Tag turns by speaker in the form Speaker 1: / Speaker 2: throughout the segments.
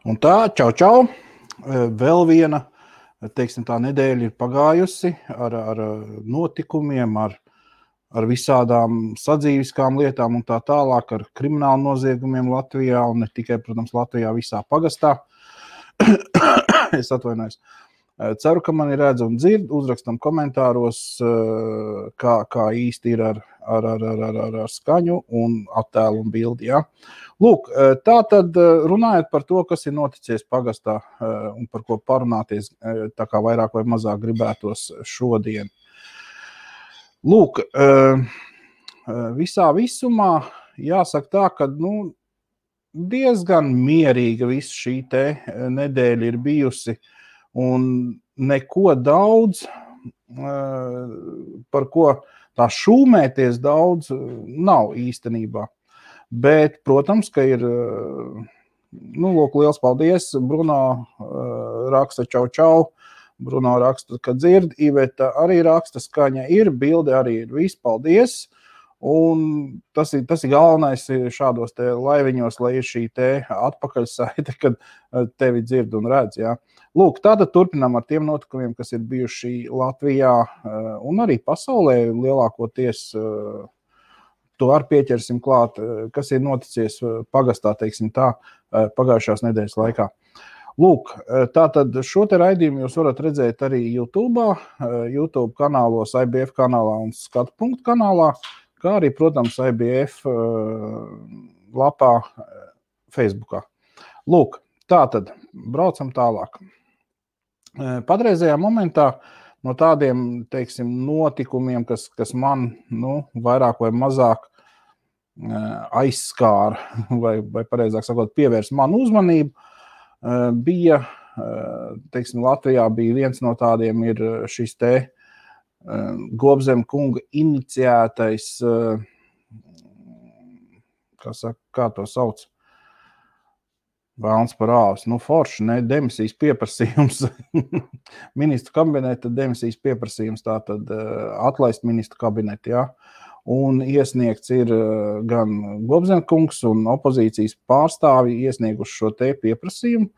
Speaker 1: Un tā, čau. Vēl viena, teiksim, tā nedēļa ir pagājusi ar notikumiem, ar visādām sadzīviskām lietām un tā tālāk, ar kriminālu noziegumiem Latvijā un ne tikai, protams, Latvijā, visā pagastā. Es atvainojos. Ceru, ka mani redz un dzird, uzrakstam komentāros, kā īsti ir ar skaņu un attēlu un bildi, ja? Lūk, tā tad runājot par to, kas ir noticies pagastā un par ko parunāties, tā kā vairāk vai mazāk gribētos šodien. Lūk, visā visumā jāsaka tā, ka diezgan mierīga visa šī te nedēļa ir bijusi un neko daudz, par ko tā šūmēties daudz nav īstenībā. Bet, protams, ka ir, lūk, liels paldies, Bruno raksta čau, Bruno raksta, ka dzird, Iveta arī raksta, skaņa ir, bilde arī ir, viss, paldies, un tas ir galvenais šādos te laiviņos, lai ir šī te atpakaļsaite, kad tevi dzird un redz, jā. Lūk, tātad turpinām ar tiem notikumiem, kas ir bijuši Latvijā un arī pasaulē lielākoties. To ar pieķersim klāt, kas ir noticies pagastā, teiksim tā, pagājušās nedēļas laikā. Lūk, tātad šo te raidījumu jūs varat redzēt arī YouTube kanālos, IBF kanālā un Skatu.punktu kanālā, kā arī, protams, IBF lapā Facebookā. Lūk, tātad braucam tālāk. Patreizajā momentā no tādiem, teiksim, notikumiem, kas man, vairāk vai mazāk aizskāra, vai pareizāk sakot, pievērs manu uzmanību, bija, teiksim, Latvijā bija viens no tādiem ir šis te Gobzem kunga iniciētais, kā to sauc? Vēlns par āvis, forši, ne, demisijas pieprasījums, ministru kabineta demisijas pieprasījums, tātad atlaist ministru kabinetu, jā, un iesniegts ir gan Gobzemkungs un opozīcijas pārstāvi iesnieguši šo te pieprasījumu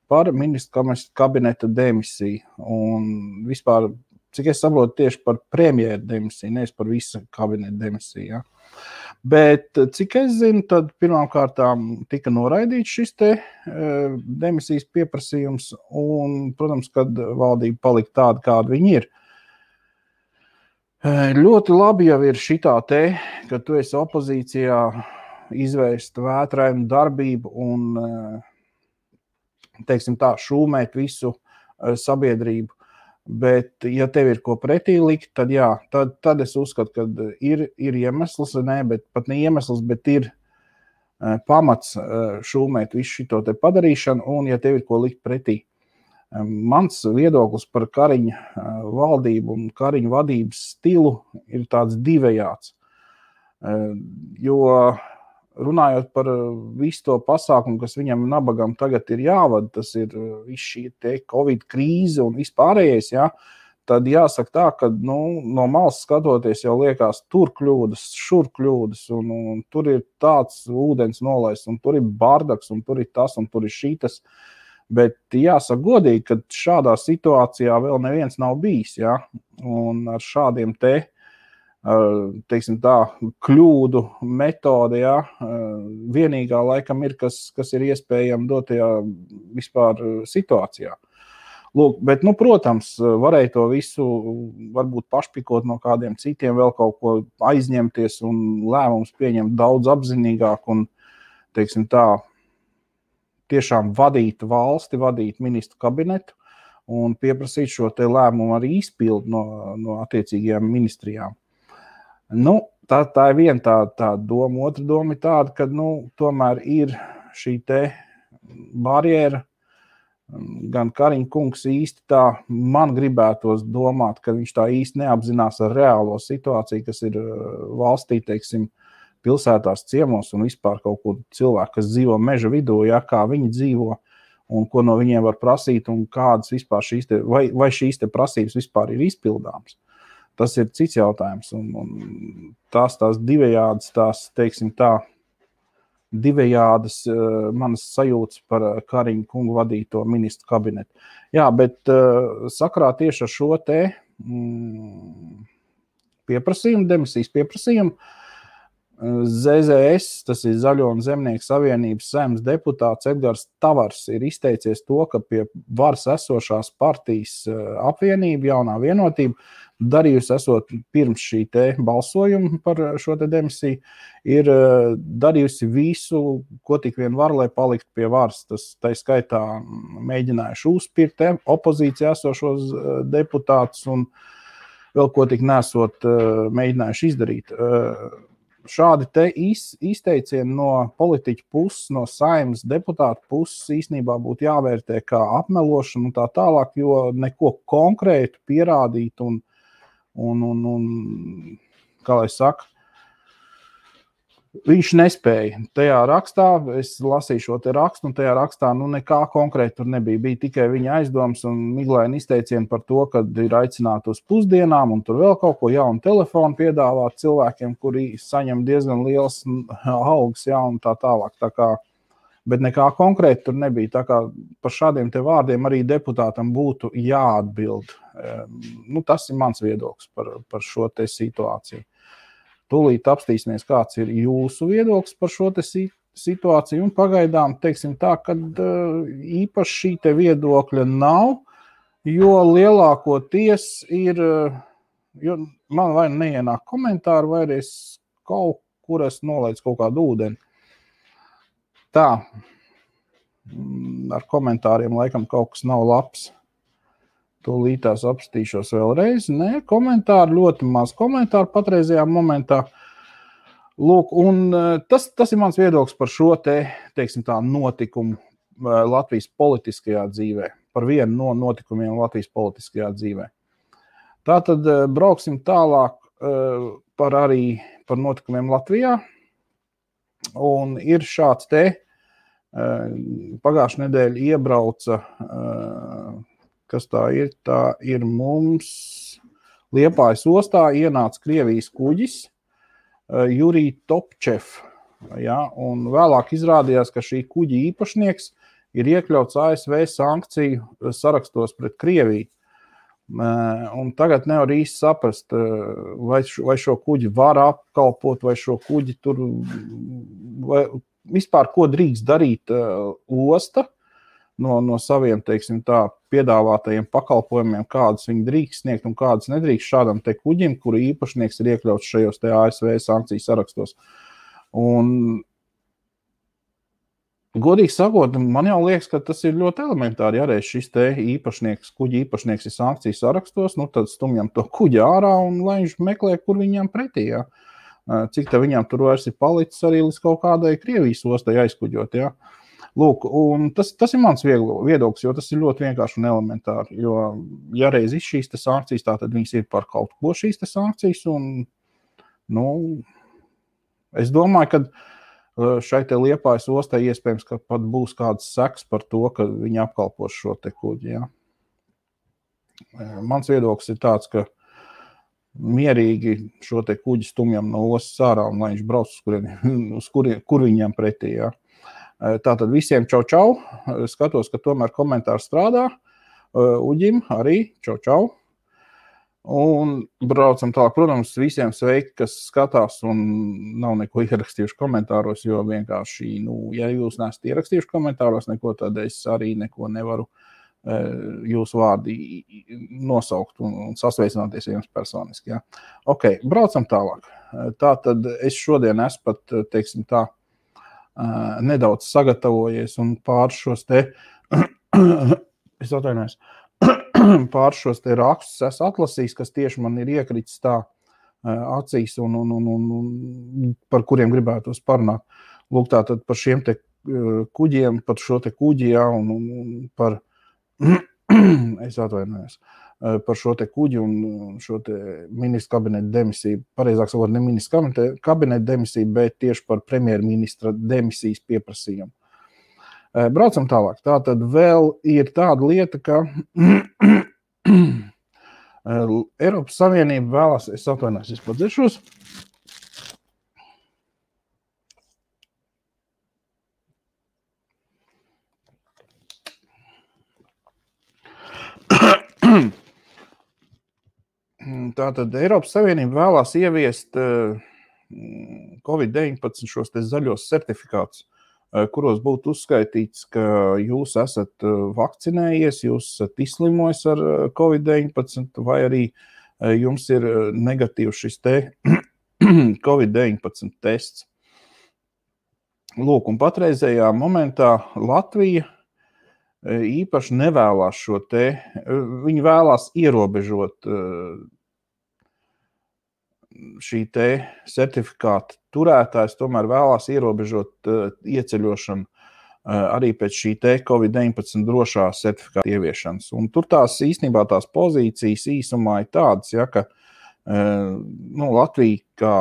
Speaker 1: par ministru kabineta demisiju, un vispār, cik es saprotu, tieši par premjeru demisiju, nevis par visu kabineta demisiju, jā. Bet, cik es zinu, tad pirmkārtām tika noraidīts šis te demisijas pieprasījums un, protams, kad valdība palika tāda, kāda viņi ir. Ļoti labi jau ir šitā te, ka tu esi opozīcijā izvērst vētrainu darbību un, teiksim tā, šūmēt visu sabiedrību. Bet, ja tev ir ko pretī likt, tad jā, tad es uzskatu, ka ir iemesls, bet pat ne iemesls, bet ir pamats šūmēt visu šito te padarīšanu, un ja tev ir ko likt pretī. Mans viedoklis par Kariņa valdību un Kariņa vadības stilu ir tāds divējāds, jo runājot par visu to pasākumu, kas viņam nabagam tagad ir jāvada, tas ir viss šī te Covid krīze un vispārējais, jā, tad jāsaka tā, ka no malas skatoties jau liekas tur kļūdas, šur kļūdas, un tur ir tāds ūdens nolaists, un tur ir bardaks, un tur ir tas, un tur ir šitas. Bet jāsaka godīgi, ka šādā situācijā vēl neviens nav bijis, jā, un ar šādiem teiksim tā, kļūdu metode, jā, vienīgā laikam ir, kas ir iespējami dotajā vispār situācijā. Lūk, bet, protams, varēja to visu varbūt pašpikot no kādiem citiem, vēl kaut ko aizņemties un lēmums pieņemt daudz apzinīgāk un, teiksim tā, tiešām vadīt valsti, vadīt ministru kabinetu un pieprasīt šo te lēmumu arī izpildu no attiecīgajām ministrijām. Tā ir viena tā doma. Otra doma ir tāda, ka, tomēr ir šī te barjera. Gan Kariņa kungs īsti tā, man gribētos domāt, ka viņš tā īsti neapzinās ar reālo situāciju, kas ir valstī, teiksim, pilsētās, ciemos un vispār kaut kur cilvēki, kas dzīvo meža vidū, kā viņi dzīvo. un ko no viņiem var prasīt, un kādas vispār vai šīs te prasības vispār ir izpildāmas. Tas ir cits jautājums, un tās divējādas, teiksim tā, divējādas manas sajūtas par Kariņa kungu vadīto ministru kabinetu. Jā, bet sakarā tieši ar šo te pieprasījumu, demisijas pieprasījumu, ZZS, tas ir Zaļo un Zemnieku savienības saeimas deputāts Edgars Tavars ir izteicies to, ka pie varas esošās partijas apvienība, jaunā vienotība, darījusi esot pirms šī te balsojuma par šo te demisiju, ir darījusi visu, ko tik vien var, lai paliktu pie varas. Tas tā skaitā mēģinājuši uzspirt opozīcijā esošos deputātus un vēl ko tik nesot mēģinājuši izdarīt. Šādi te izteicieni no politiķu puses, no saeimas deputātu puses īstenībā būtu jāvērtē kā apmelošana un tā tālāk, jo neko konkrētu pierādīt un kā lai saka, viņš nespēja. Tajā rakstā, es lasīju šo te rakstu, un tajā rakstā nekā konkrēti tur nebija. Bija tikai viņa aizdoms un miglaini izteicieni par to, ka ir aicināti uz pusdienām un tur vēl kaut ko jaunu telefonu piedāvāt cilvēkiem, kuri saņem diezgan liels algas, jā, un tā tālāk. Tā kā, bet nekā konkrēti tur nebija. Tā kā par šādiem te vārdiem arī deputātam būtu jāatbild. Tas ir mans viedoklis par šo te situāciju. Tūlīt apstīsimies, kāds ir jūsu viedoklis par šo te situāciju, un pagaidām teiksim tā, ka īpaši šī te viedokļa nav, jo lielākoties ir, jo man vai neienāk komentāri, vai es kaut kur nolaidu kaut kādu ūdeni. Tā, ar komentāriem laikam kaut kas nav labs. Tūlītās apstīšos vēlreiz. Nē, komentāri, ļoti maz komentāru patreizajā momentā. Lūk, un tas ir mans viedoklis par šo te, teiksim tā, notikumu Latvijas politiskajā dzīvē. Par vienu no notikumiem Latvijas politiskajā dzīvē. Tātad brauksim tālāk par notikumiem Latvijā. Un ir šāds te, pagājušā nedēļa iebrauca kas tā ir mums Liepājas ostā ienāca Krievijas kuģis Jurij Topčev, ja, un vēlāk izrādījās, ka šī kuģa īpašnieks ir iekļauts ASV sankciju sarakstos pret Krieviju. Un tagad nevar īsti saprast, vai šo kuģi var apkalpot, vai šo kuģi tur, vai vispār ko drīkst darīt osta, no saviem, teiksim tā, piedāvātajiem pakalpojumiem, kādus viņi drīkst sniegt un kādus nedrīkst šādam te kuģim, kuru īpašnieks ir iekļauts šajos te ASV sankciju sarakstos. Un, godīgi sakot, man jau liekas, ka tas ir ļoti elementāri, ja reiz šis te kuģi īpašnieks ir sankciju sarakstos, tad stumjam to kuģi ārā un lai viņš meklē, kur viņam pretī, ja. Cik te viņam tur vairs ir palicis arī līdz kaut kādai Krievijas ostai aizkuģot, ja. Lūk, un tas ir mans viedoklis, jo tas ir ļoti vienkārši un elementāri, jo ja reiz ir šīs te sankcijas, tad viņas ir par kaut ko šīs te sankcijas, un, es domāju, ka šai te Liepājas ostai iespējams, ka pat būs kāds seks par to, ka viņi apkalpos šo te kuģi, ja. Mans viedoklis ir tāds, ka mierīgi šo te kuģi stumjam no ostas ārā, un lai viņš brauc kur viņam pretī, ja. Tātad visiem čau. Skatos, ka tomēr komentāri strādā. Uģim arī čau. Un braucam tālāk. Protams, visiem sveiki, kas skatās un nav neko ierakstījuši komentāros, jo vienkārši, ja jūs neesat ierakstījuši komentāros neko, tad es arī neko nevaru jūsu vārdi nosaukt un sasveicināties jums personiski. Ja? Ok, braucam tālāk. Tātad es šodien esmu pat, teiksim tā, nedaudz sagatavojies un pār šos te rakstus esmu atlasījis, kas tieši man ir iekritis tā acīs un par kuriem gribētos parunāt. Lūk, tātad par šiem te kuģiem, par šo te kuģi, jā, un par es atvainojos. Par šo te kuģi un šo te ministra kabineta demisiju, pareizāk sakot, ne ministra kabineta demisiju, bet tieši par premjerministra demisijas pieprasījumu. Braucam tālāk. Tātad vēl ir tāda lieta, ka Eiropas Savienība vēlās, es atvainojos, es padzeršos. Tātad Eiropas Savienība vēlās ieviest COVID-19 šos te zaļos certifikātus, kuros būtu uzskaitīts, ka jūs esat vakcinējies, jūs esat izslimojis ar COVID-19, vai arī jums ir negatīvs šis te COVID-19 tests. Lūk, un patreizējā momentā Latvija īpaši nevēlās šo te, viņi vēlās ierobežot šī te certifikāta turētājs, tomēr vēlās ierobežot ieceļošanu arī pēc šī te COVID-19 drošā certifikāta ieviešanas. Un tur īstenībā tās pozīcijas īsumā ir tādas, ja, ka Latvija kā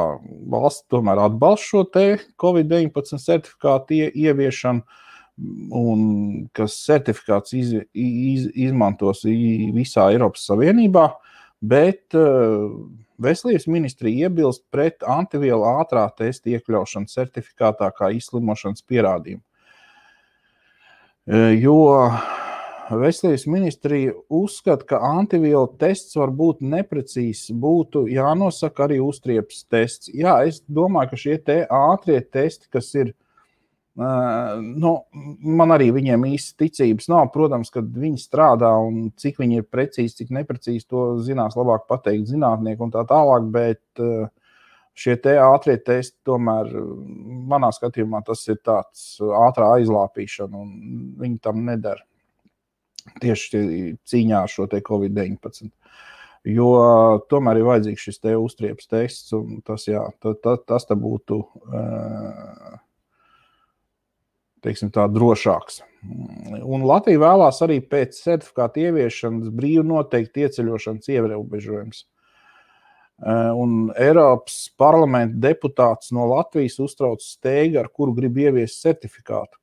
Speaker 1: valsts tomēr atbalsta šo te COVID-19 certifikātu ieviešanu, un kas certifikāts izmantos visā Eiropas Savienībā, bet Veselības ministrija iebilst pret antivielu ātrā testa iekļaušanu certifikātā kā izslimošanas pierādījumu. Jo Veselības ministrija uzskata, ka antivielu tests var būt neprecīzs, būtu jānosaka arī uztriepas tests. Jā, es domāju, ka šie te ātrie testi, kas ir, man arī viņiem īsti ticības nav. Protams, kad viņi strādā un cik viņi ir precīzi, cik neprecīzi, to zinās labāk pateikt zinātnieki un tā tālāk, bet šie te ātrie testi tomēr, manā skatījumā, tas ir tāds ātrā aizlāpīšana un viņi tam nedara. Tieši cīņā ar šo te COVID-19. Jo tomēr ir vajadzīgs šis te uztriepas tests un tas, jā, tas te būtu teiksim tā, drošāks. Un Latvija vēlās arī pēc certifikāta ieviešanas brīvi noteikt ieceļošanas ierobežojums. Un Eiropas parlamenta deputāts no Latvijas uztrauc steigu, ar kuru grib ieviest certifikātu.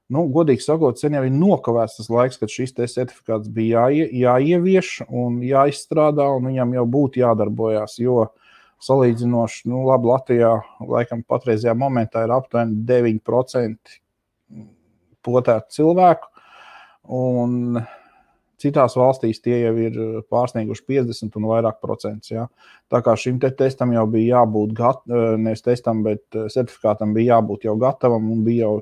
Speaker 1: Godīgi sakot, sen jau ir nokavēts tas laiks, kad šis te certifikāts bija jāievieš un jāizstrādā, un viņam jau būtu jādarbojās, jo salīdzinoši, labi, Latvijā laikam patreizajā momentā ir aptuveni 9% potētu cilvēku, un citās valstīs tie jau ir pārsnieguši 50 un vairāk procentus. Ja? Tā kā šim te testam jau bija jābūt nevis testam, bet certifikātam bija jābūt jau gatavam un bija jau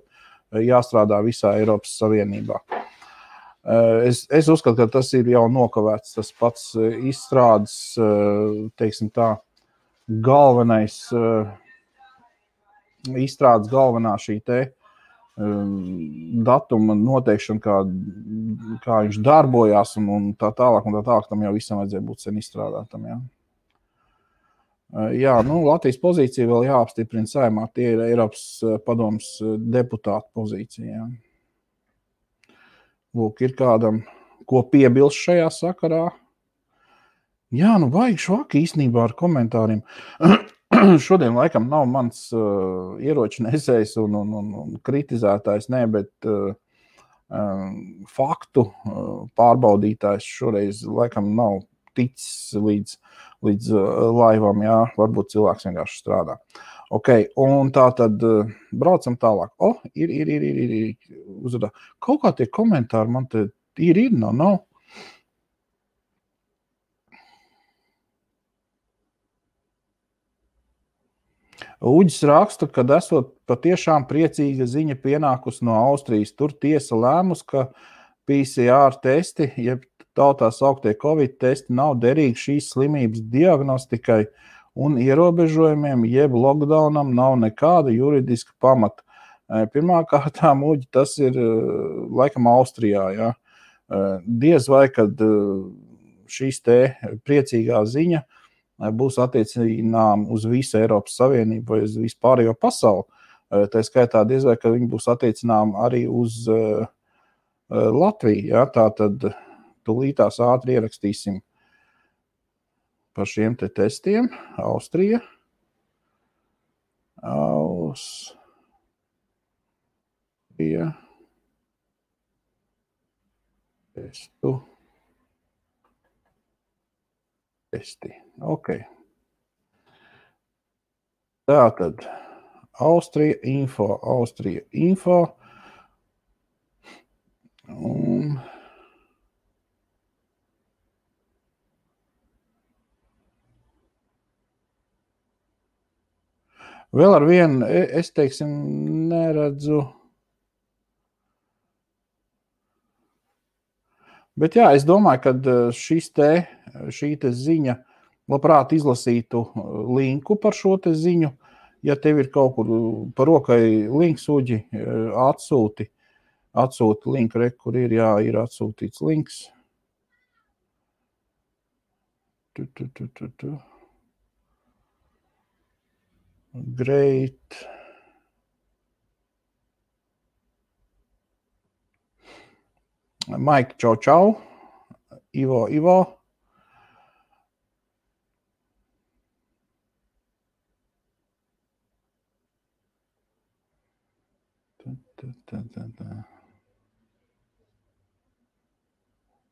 Speaker 1: jāstrādā visā Eiropas Savienībā. Es uzskatu, ka tas ir jau nokavēts, tas pats izstrādes, teiksim tā, izstrādes galvenā šī te datuma noteikšana, kā viņš darbojās un tā tālāk, tam jau visam vajadzēja būt sen izstrādātam. Ja? Jā, Latvijas pozīcija vēl jāapstiprina Saeimā, tie ir Eiropas padomes deputātu pozīcija. Ja? Lūk, ir kādam, ko piebilst šajā sakarā. Jā, vajag švaki īstenībā ar komentāriem. Šodien laikam nav mans ieroču nesējs un kritizētājs, bet faktu pārbaudītājs šoreiz laikam nav ticis līdz laivam, jā, varbūt cilvēks vienkārši strādā. Ok, un tā tad braucam tālāk. Ir uzvadā. Kaut kā tie komentāri man te nav. Uģis raksta, kad esot patiešām priecīga ziņa pienākus no Austrijas. Tur tiesa lēmus, ka PCR testi, jeb tautā sauktie Covid testi, nav derīgi šīs slimības diagnostikai un ierobežojumiem, jeb lockdownam nav nekāda juridiska pamata. Pirmkārtām, Uģi, tas ir laikam Austrijā. Ja? Diez vai, kad šīs te priecīgā ziņa būs attiecinām uz visu Eiropas Savienību vai uz vispārējo pasauli. Tā skaitā diez vai, ka viņi būs attiecinām arī uz Latviju. Ja? Tātad tūlītās ātri ierakstīsim par šiem te testiem. Austrija. Austrija. Testi. Ok. Tātad Austrija info. Un vēl ar vienu, es teiksim, neredzu. Bet jā, es domāju, ka šī te ziņa, labprāt izlasītu linku par šo te ziņu. Ja tev ir kaut kur par rokai links, Uģi, atsūti linku, kur ir atsūtīts links. Great. Mike, čau. Ivo.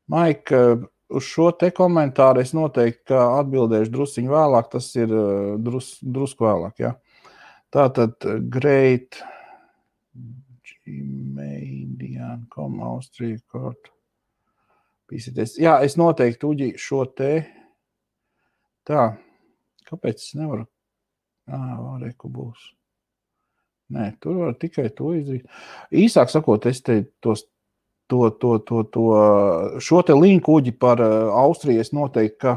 Speaker 1: Mike, uz šo te komentāru es noteikti atbildēšu drusciņu vēlāk, tas ir drusku vēlāk, jā. Tātad great gmail.com Austrija kort. Pīsieties. Jā, es noteikti, Uģi, šo te. Tā, kāpēc es nevaru? Reku būs. Nē, tur var tikai to izdarīt. Īsāk sakot, es te šo te linku, Uģi, par Austriju es noteikti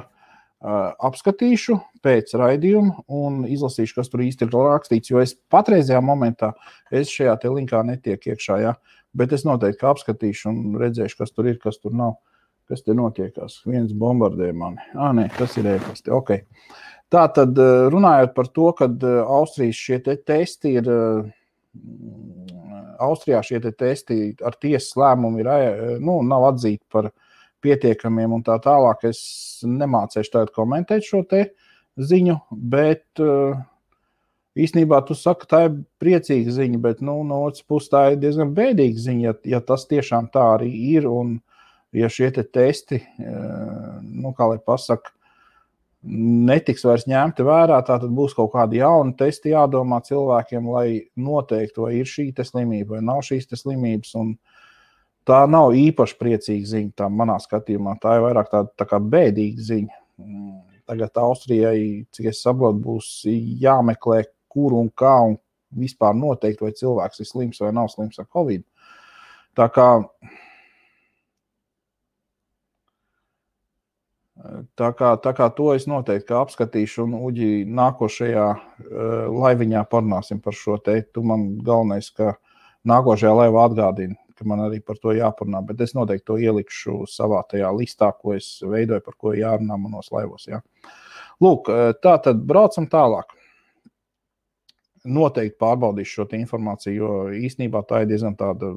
Speaker 1: apskatīšu pēc raidījuma un izlasīšu, kas tur īsti ir rakstīts, jo es patreizajā momentā šajā te linkā netiek iekšā, jā, bet es noteikti apskatīšu un redzēšu, kas tur ir, kas tur nav, kas te notiekās. Viens bombardē mani. Nē, tas ir e-pasti, ok. Tātad runājot par to, kad Austrijas šie te testi ir, Austrijā šie te testi ar tiesas lēmumu ir, nav atzīti par pietiekamiem un tā tālāk, es nemācēšu tagad komentēt šo te ziņu, bet īstenībā tu saki, tā ir priecīga ziņa, bet no otras puses tā ir diezgan bēdīga ziņa, ja tas tiešām tā arī ir un ja šie te testi, kā lai pasaka, netiks vairs ņemti vērā, tātad būs kaut kādi jauni testi jādomā cilvēkiem, lai noteikti, vai ir šī te slimība, vai nav šīs te slimības, un tā nav īpaši priecīga ziņa, tā manā skatījumā, tā ir vairāk tā kā bēdīga ziņa. Tagad Austrijai, cik es saprotu, būs jāmeklē, kur un kā, un vispār noteikti, vai cilvēks ir slims vai nav slims ar Covid. Tā kā to es noteikti apskatīšu, un Uģi, nākošajā laiviņā parunāsim par šo te. Tu man galvenais, ka nākošajā laivā atgādini, ka man arī par to jāparunā, bet es noteikti to ielikšu savā tajā listā, ko es veidoju, par ko jārunā manos laivos. Jā. Lūk, tā tad braucam tālāk. Noteikti pārbaudīšu šo informāciju, jo īstenībā tā ir diezgan tāda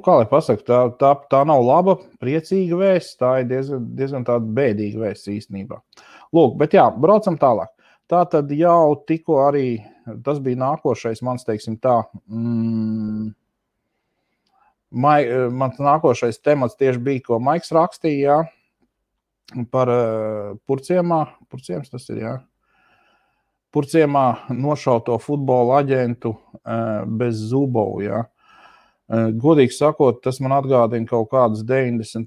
Speaker 1: kā lai pasaka, tā nav laba, priecīga vēsts, tā ir diezgan tāda bēdīga vēsts īstenībā. Lūk, bet jā, braucam tālāk. Tā tad jau tikko arī, tas bija nākošais, mans teiksim tā, mans nākošais temats tieši bija, ko Maiks rakstīja, par Purciems tas ir, jā. Purciemā nošauto futbola aģentu bez Zubovu, jā. Godīgi sakot, tas man atgādina kaut kādus 90.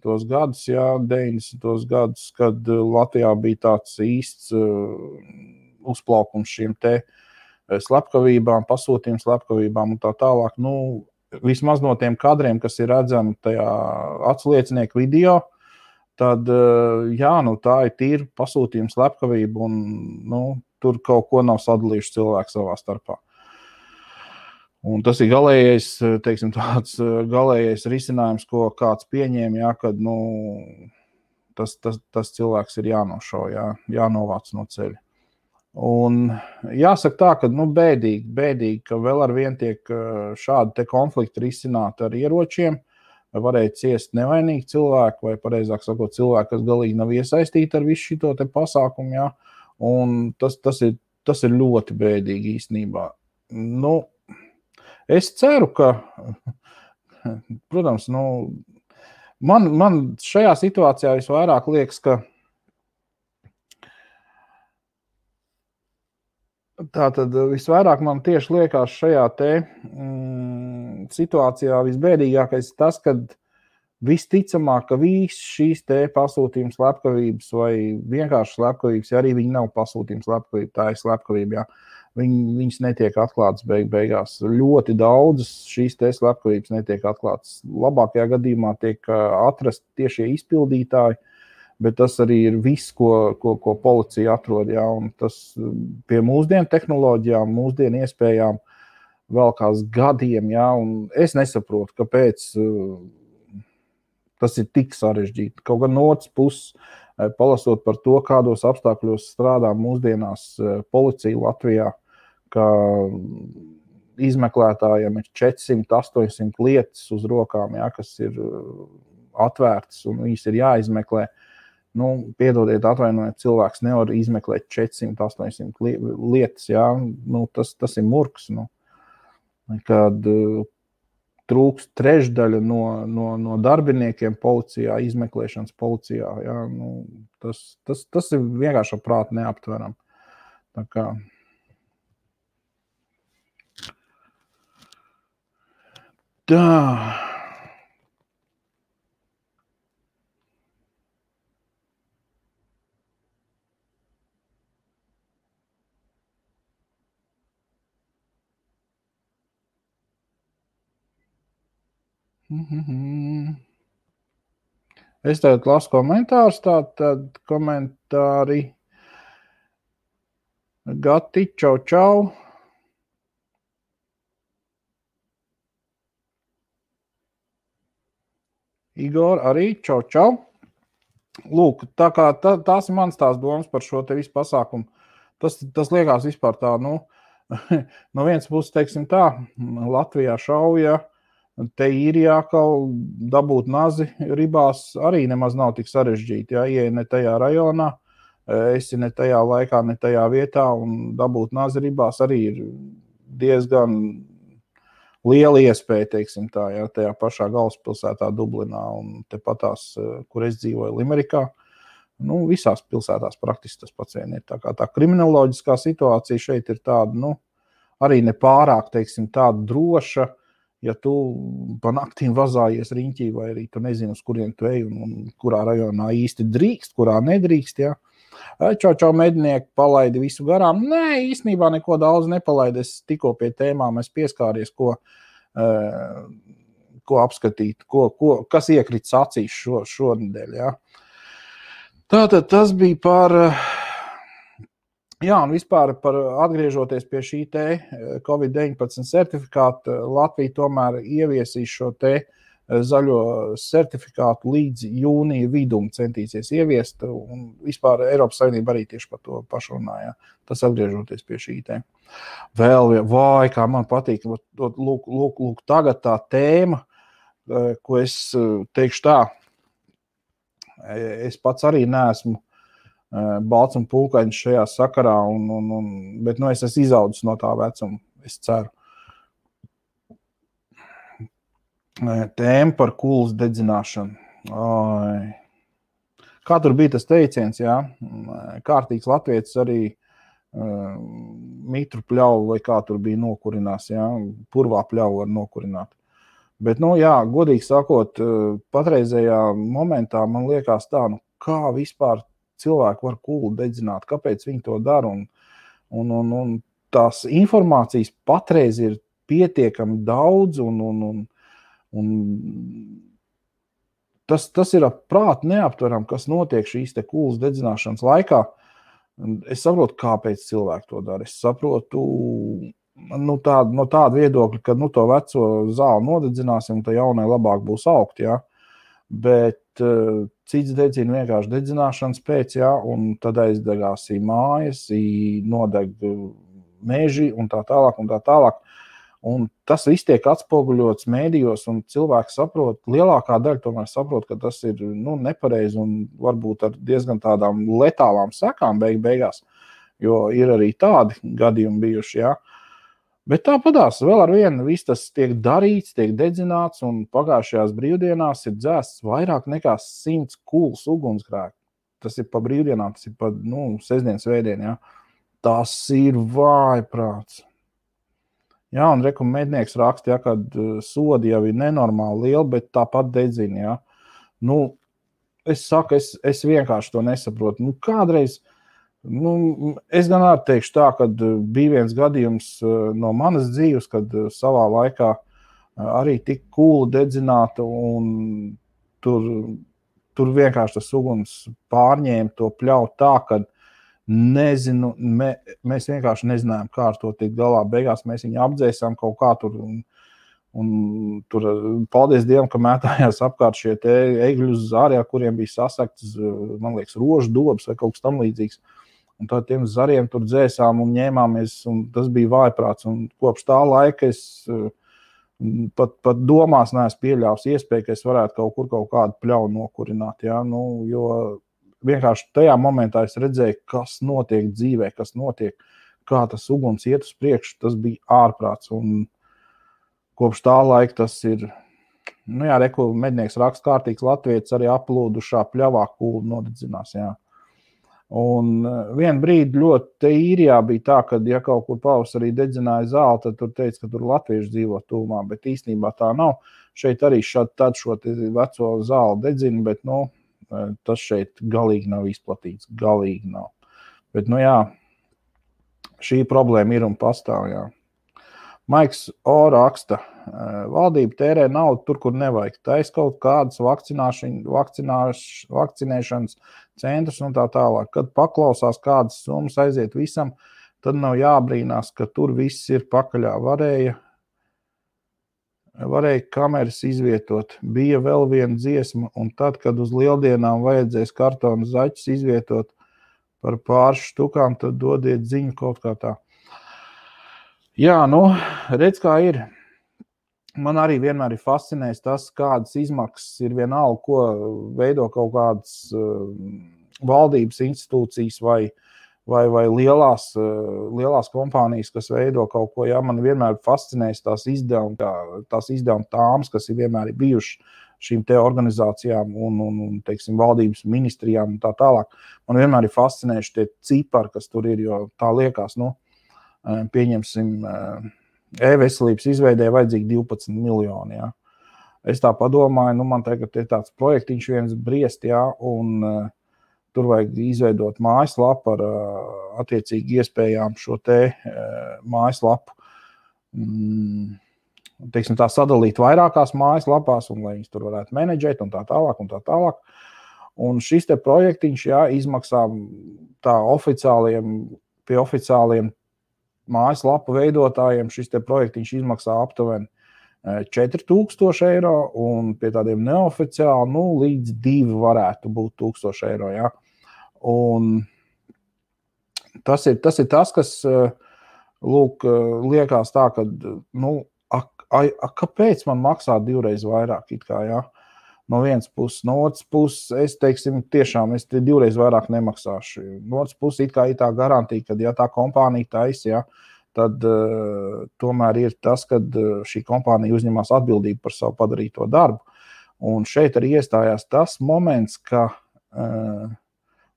Speaker 1: gadus, kad Latvijā bija tāds īsts uzplaukums šiem te slepkavībām, pasūtījums slepkavībām un tā tālāk. Vismaz no tiem kadriem, kas ir redzami tajā atsliecinieku video, tad, tā ir tīra pasūtījums slepkavība un, tur kaut ko nav sadalījuši cilvēki savā starpā. Un tas ir galējais, teiksim, tāds galējais risinājums, ko kāds pieņēma, jā, kad, tas cilvēks ir jānošauj, jānovāc no ceļa. Un jāsaka tā, ka, bēdīgi, ka vēl ar vien tiek šādi te konflikti risināti ar ieročiem, varēja ciest nevainīgi cilvēki, vai pareizāk sakot, cilvēki, kas galīgi nav iesaistīti ar visu šito te pasākumu, jā. Un tas ir ļoti bēdīgi īstenībā. Es ceru, ka, protams, man šajā situācijā visvairāk liekas, ka tātad visvairāk man tieši liekas šajā te situācijā visbēdīgākais tas, kad visticamāk, ka viss šīs te pasūtījuma slepkavības vai vienkārši slepkavības, ja arī viņi nav pasūtījuma slepkavība, tā ir slepkavība, viņas netiek atklātas beigās. Ļoti daudzas šīs te slepkavības netiek atklātas. Labākajā gadījumā tiek atrasti tiešie izpildītāji, bet tas arī ir viss, ko policija atrod. Jā, un tas pie mūsdienu tehnoloģijām, mūsdienu iespējām velkās gadiem. Jā, un es nesaprotu, kāpēc tas ir tik sarežģīti. Kaut gan no otras puses, palasot par to, kādos apstākļos strādā mūsdienās policija Latvijā, ka izmeklētājiem ir 400-800 lietas uz rokām, jā, kas ir atvērtas un viņas ir jāizmeklē. Piedodiet, atvainojiet, cilvēks nevar izmeklēt 400-800 lietas, jā. Tas ir murks. Kad trūkst trešdaļa no darbiniekiem policijā, izmeklēšanas policijā. Jā, tas ir vienkārši prāt neaptveram. Tā kā. Tā. Es tagad lasu komentārus, tad komentāri. Gati, čau. Igor arī, čau. Lūk, tā kā tās ir mans tās domas par šo te visu pasākumu. Tas liekas vispār tā, no vienas puses, teiksim tā, Latvijā šauja, te Īrijā kaut dabūt nazi ribās arī nemaz nav tik sarežģīti. Ja ieej ne tajā rajonā, esi ne tajā laikā, ne tajā vietā un dabūt nazi ribās arī ir diezgan liela iespēja, teiksim tā, ja, tajā pašā galvaspilsētā Dublinā un tepatās, kur es dzīvoju, Limerikā. Visās pilsētās praktiski tas pats vien ir. Tā kriminoloģiskā situācija šeit ir tāda, arī nepārāk, teiksim, tāda droša, ja tu pa naktīm vazājies riņķī, vai arī tu nezini, uz kurien tu ej un kurā rajonā īsti drīkst, kurā nedrīkst, ja. Čau, mednieki, palaidi visu garām. Nē, īstenībā neko daudz nepalaidi. Es tikko pie tēmām es pieskāries, ko apskatīt, kas iekrits acīs šonedēļ, ja. Tātad tas bija par, un vispār par atgriežoties pie šī te COVID-19 certifikāta, Latvija tomēr ieviesīs šo te zaļo certifikātu līdz jūnija vidum centīsies ieviest, un vispār Eiropas Savienība arī tieši par to pašu runāja. Tas atgriežoties pie šī te. Vēl, kā man patīk, lūk, tagad tā tēma, ko es teikšu tā, es pats arī neesmu balts un pulkains šajā sakarā, bet es esmu izaudzis no tā vecuma, es ceru. Tēma par kulas dedzināšanu. Kā tur bija tas teiciens, jā? Kārtīgs latvietis arī mitru pļauju, vai kā tur bija nokurinās, jā? Purvā pļauju var nokurināt. Bet, godīgi sakot, patreizējā momentā man liekas tā, kā vispār cilvēki var kulu dedzināt, kāpēc viņi to dara, un tās informācijas patreiz ir pietiekami daudz, un tas ir prāt neaptveram, kas notiek šīs te kulas dedzināšanas laikā. Es saprotu, kāpēc cilvēki to dara. Es saprotu no tāda viedokļa, ka to veco zāli nodedzināsim, tad jaunai labāk būs augt, jā. Bet cits dedzina vienkārši dedzināšanas pēc, jā, un tad aizdegās mājas, nodeg meži un tā tālāk. Un tas viss tiek atspoguļots mēdījos, un cilvēki saprot, lielākā daļa tomēr saprot, ka tas ir nepareizi un varbūt ar diezgan tādām letālām sekām beigās, jo ir arī tādi gadījumi bijuši, jā. Bet tāpadās vēl ar vienu viss tas tiek darīts, tiek dedzināts, un pagājušajās brīvdienās ir dzēsts vairāk nekā 100 kūls ugunsgrēku. Tas ir pa brīvdienām, tas ir pa sestdien, svētdien, jā. Tas ir vājprāts. Jā, un mednieks raksta, jā, kad sodi jau ir nenormāli lieli, bet tāpat dedzina, jā. Es saku, es vienkārši to nesaprotu. Kādreiz, es gan arī teikšu tā, kad bija viens gadījums no manas dzīves, kad savā laikā arī tik kūla dedzināta, un tur vienkārši tas uguns pārņēma to pļauju tā, ka nezinu, mēs vienkārši nezinājām, kā ar to tikt galā. Beigās mēs viņu apdzēsām kaut kā tur, un tur, paldies Dievam, ka mētājās apkārt šie te egļu zari, kuriem bija sasaktas, man liekas, rožu dobas vai kaut kas tam līdzīgs. Un tad tiem zariem tur dzēsām un ņēmāmies, un tas bija vājprāts. Un kopš tā laika es pat domās neesmu pieļāvis iespēju, ka es varētu kaut kādu pļauju nokurināt. Ja? Jo vienkārši tajā momentā es redzēju, kas notiek dzīvē, kas notiek, kā tas uguns iet uz priekšu. Tas bija ārprāts. Un kopš tā laika tas ir, mednieks raksta kārtīgs latvietis arī aplūdušā pļavā kūlu nodedzinās. Jā. Un vienu brīdi ļoti īrijā bija tā, ka, ja kaut kur pavasarī dedzināja zāli, tad tur teica, ka tur latvieši dzīvo tūmā, bet īstenībā tā nav. Šeit arī tad šo veco zāli dedzina, bet, tas šeit galīgi nav izplatīts, galīgi nav. Bet, šī problēma ir un pastāv, jā. Maiks O raksta, valdība tērē naudu tur, kur nevajag. Tais kaut kādas vakcinēšanas centrus un tā tālāk. Kad paklausās kādas summas aiziet visam, tad nav jābrīnās, ka tur viss ir pakaļā. Varēja kameras izvietot. Bija vēl viena dziesma, un tad, kad uz lieldienām vajadzēs kartonu zaķus izvietot par pāris štukām, tad dodiet ziņu kaut kā tā. Jā, redz, kā ir. Man arī vienmēr ir fascinējis tas, kādas izmaksas ir vienalga, ko veido kaut kādas valdības institūcijas vai lielās kompānijas, kas veido kaut ko. Jā, man vienmēr fascinējis tās izdevuma tāmas, kas ir vienmēr bijušas šīm te organizācijām un teiksim, valdības ministrijām un tā tālāk. Man vienmēr ir fascinējuši tie cipari, kas tur ir, jo tā liekas, pieņemsim, e-veselības izveidē vajadzīgi 12 miljoni. Ja. Es tā padomāju, man tagad ir tāds projektiņš viens briest, ja, un tur vajag izveidot mājaslapu ar attiecīgi iespējām šo te mājaslapu, teiksim tā, sadalīt vairākās mājaslapās, un lai viņas tur varētu menedžēt un tā tālāk un tā tālāk. Un šis te projektiņš, ja, izmaksā tā pie oficiāliem mājaslapu veidotājiem šis te projektiņš izmaksā aptuveni 4000 eiro, un pie tādiem neoficiāli, līdz 2 varētu būt 1000 eiro, ja. Un tas ir tas, kas, liekas tā, ka, kāpēc man maksā 2 reizes vairāk, it kā, ja. No vienas puses, no otras puses, es tiešām 2 reizes vairāk nemaksāšu. No otras puses, it kā ir tā garantija, ka, ja tā kompānija taisa, ja, tad tomēr ir tas, ka šī kompānija uzņemās atbildību par savu padarīto darbu. Un šeit arī iestājās tas moments, ka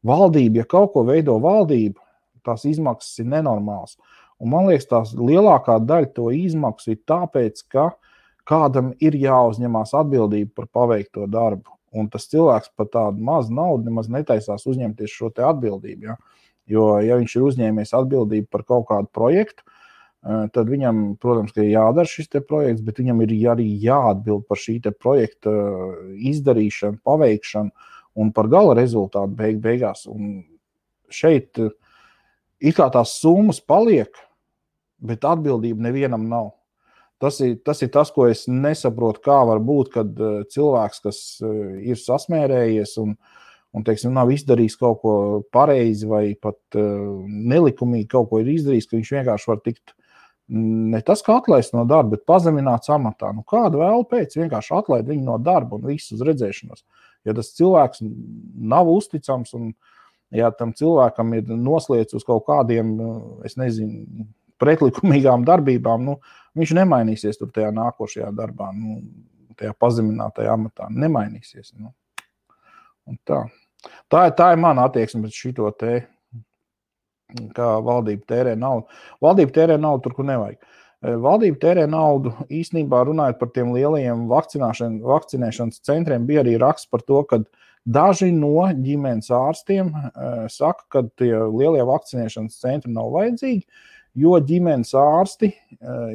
Speaker 1: valdība, ja kaut ko veido valdība, tās izmaksas ir nenormāls. Un man liekas, tās lielākā daļa to izmaksu ir tāpēc, ka kādam ir jāuzņemās atbildība par paveikto darbu. Un tas cilvēks par tādu mazu naudu nemaz netaisās uzņemties šo te atbildību. Ja? Jo, ja viņš ir uzņēmies atbildību par kaut kādu projektu, tad viņam, protams, ka ir jādara šis te projekts, bet viņam ir arī jāatbild par šī te projekta izdarīšanu, paveikšanu un par gala rezultātu beigās. Un šeit it kā tās summas paliek, bet atbildība nevienam nav. Tas ir tas, ko es nesaprotu, kā var būt, kad cilvēks, kas ir sasmērējies un teiksim, nav izdarījis kaut ko pareizi vai pat nelikumīgi kaut ko ir izdarījis, ka viņš vienkārši var tikt ne tas, kā atlaist no darba, bet pazemināts amatā. Kādu vēl pēc vienkārši atlaid viņu no darba un visu uz redzēšanos. Ja tas cilvēks nav uzticams un ja tam cilvēkam ir noslēdz uz kaut kādiem, es nezinu, pretlikumīgām darbībām, nu, viņš nemainīsies tur tajā nākošajā darbā, nu, tajā pazeminātajā amatā. Nemainīsies. Nu. Un tā. Tā ir mana attieksme pret šito te, kā valdība tērē naudu. Valdība tērē naudu tur, kur nevajag. Valdība tērē naudu, īstenībā runājot par tiem lielajiem vakcinēšanas centriem, bija arī raksts par to, ka daži no ģimenes ārstiem saka, ka tie lielie vakcinēšanas centri nav vajadzīgi, jo ģimenes ārsti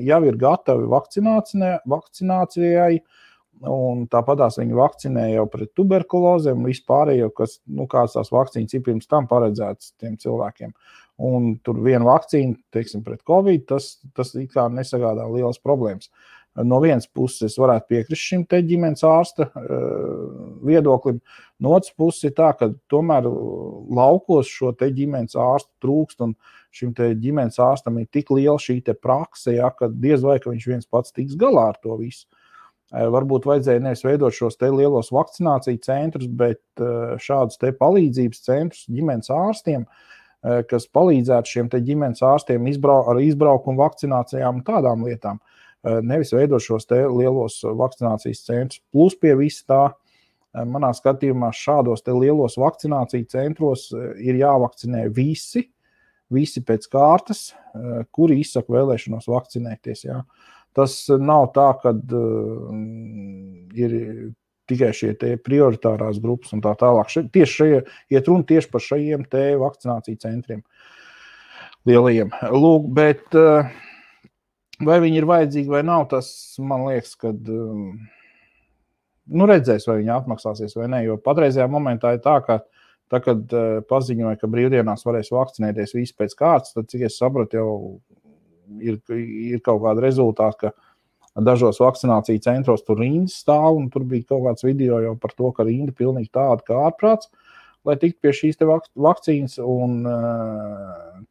Speaker 1: jau ir gatavi vakcinācijai, un tāpatās viņi vakcinē jau pret tuberkulozēm un vispārējo, kas, nu, kāds tās vakcīnas ir pirms tam paredzētas tiem cilvēkiem. Un tur viena vakcīna, teiksim, pret Covid, tas it kā nesagādā lielas problēmas. No vienas puses es varētu piekrist šim te ģimenes ārsta viedoklim, no otras puses ir tā, ka tomēr laukos šo te ģimenes ārstu trūkst, un šim te ģimenes ārstam ir tik liela šī te prakse, ja, ka diez vai, ka viņš viens pats tiks galā ar to visu. Varbūt vajadzēja nevis veidot šos te lielos vakcināciju centrus, bet šādus te palīdzības centrus ģimenes ārstiem, kas palīdzētu šiem te ģimenes ārstiem ar izbraukumu vakcinācijām un tādām lietām. Nevis veidot šos te lielos vakcinācijas centrus. Plus pie visa tā, manā skatījumā šādos te lielos vakcināciju centros ir jāvakcinē visi pēc kārtas, kuri izsaka vēlēšanos vakcinēties. Jā. Tas nav tā, ka ir tikai šie te prioritārās grupas un tā tālāk. Iet runa tieši par šajiem te vakcināciju centriem lielajiem. Lūk, bet vai viņi ir vajadzīgi vai nav, tas man liekas, ka redzēs, vai viņi atmaksāsies vai ne, jo patreizajā momentā ir tā, ka tā, kad paziņoja, ka brīvdienās varēs vakcinēties visi pēc kārtas, tad, cik es sapratu, jau ir kaut kāda rezultāta, ka dažos vakcināciju centros tur rindas stāv, un tur bija kaut kāds video jau par to, ka rinda pilnīgi tāda kā ārprāts, lai tiktu pie šīs te vakcīnas, un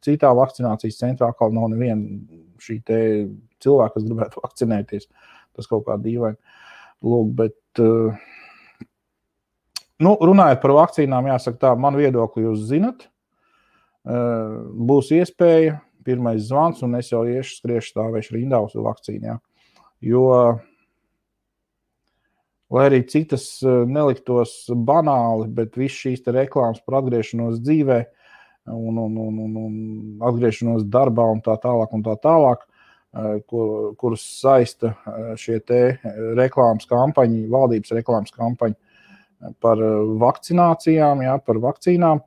Speaker 1: citā vakcinācijas centrā atkal nav neviena šī te cilvēka, kas gribētu vakcinēties. Tas kaut kā dīvaini. Lūk, bet runājot par vakcīnām, jāsaka tā, man viedokli jūs zinat, būs iespēja, pirmais zvans, un es jau skriešu stāvēšu rindā uz vakcīnu, jā. Jo, lai arī cik tas neliktos banāli, bet viss šīs te reklāmas par atgriešanos dzīvē un atgriešanos darbā un tā tālāk, kurus saista šie te reklāmas kampaņi, valdības reklāmas kampaņi par vakcinācijām, jā, par vakcīnām,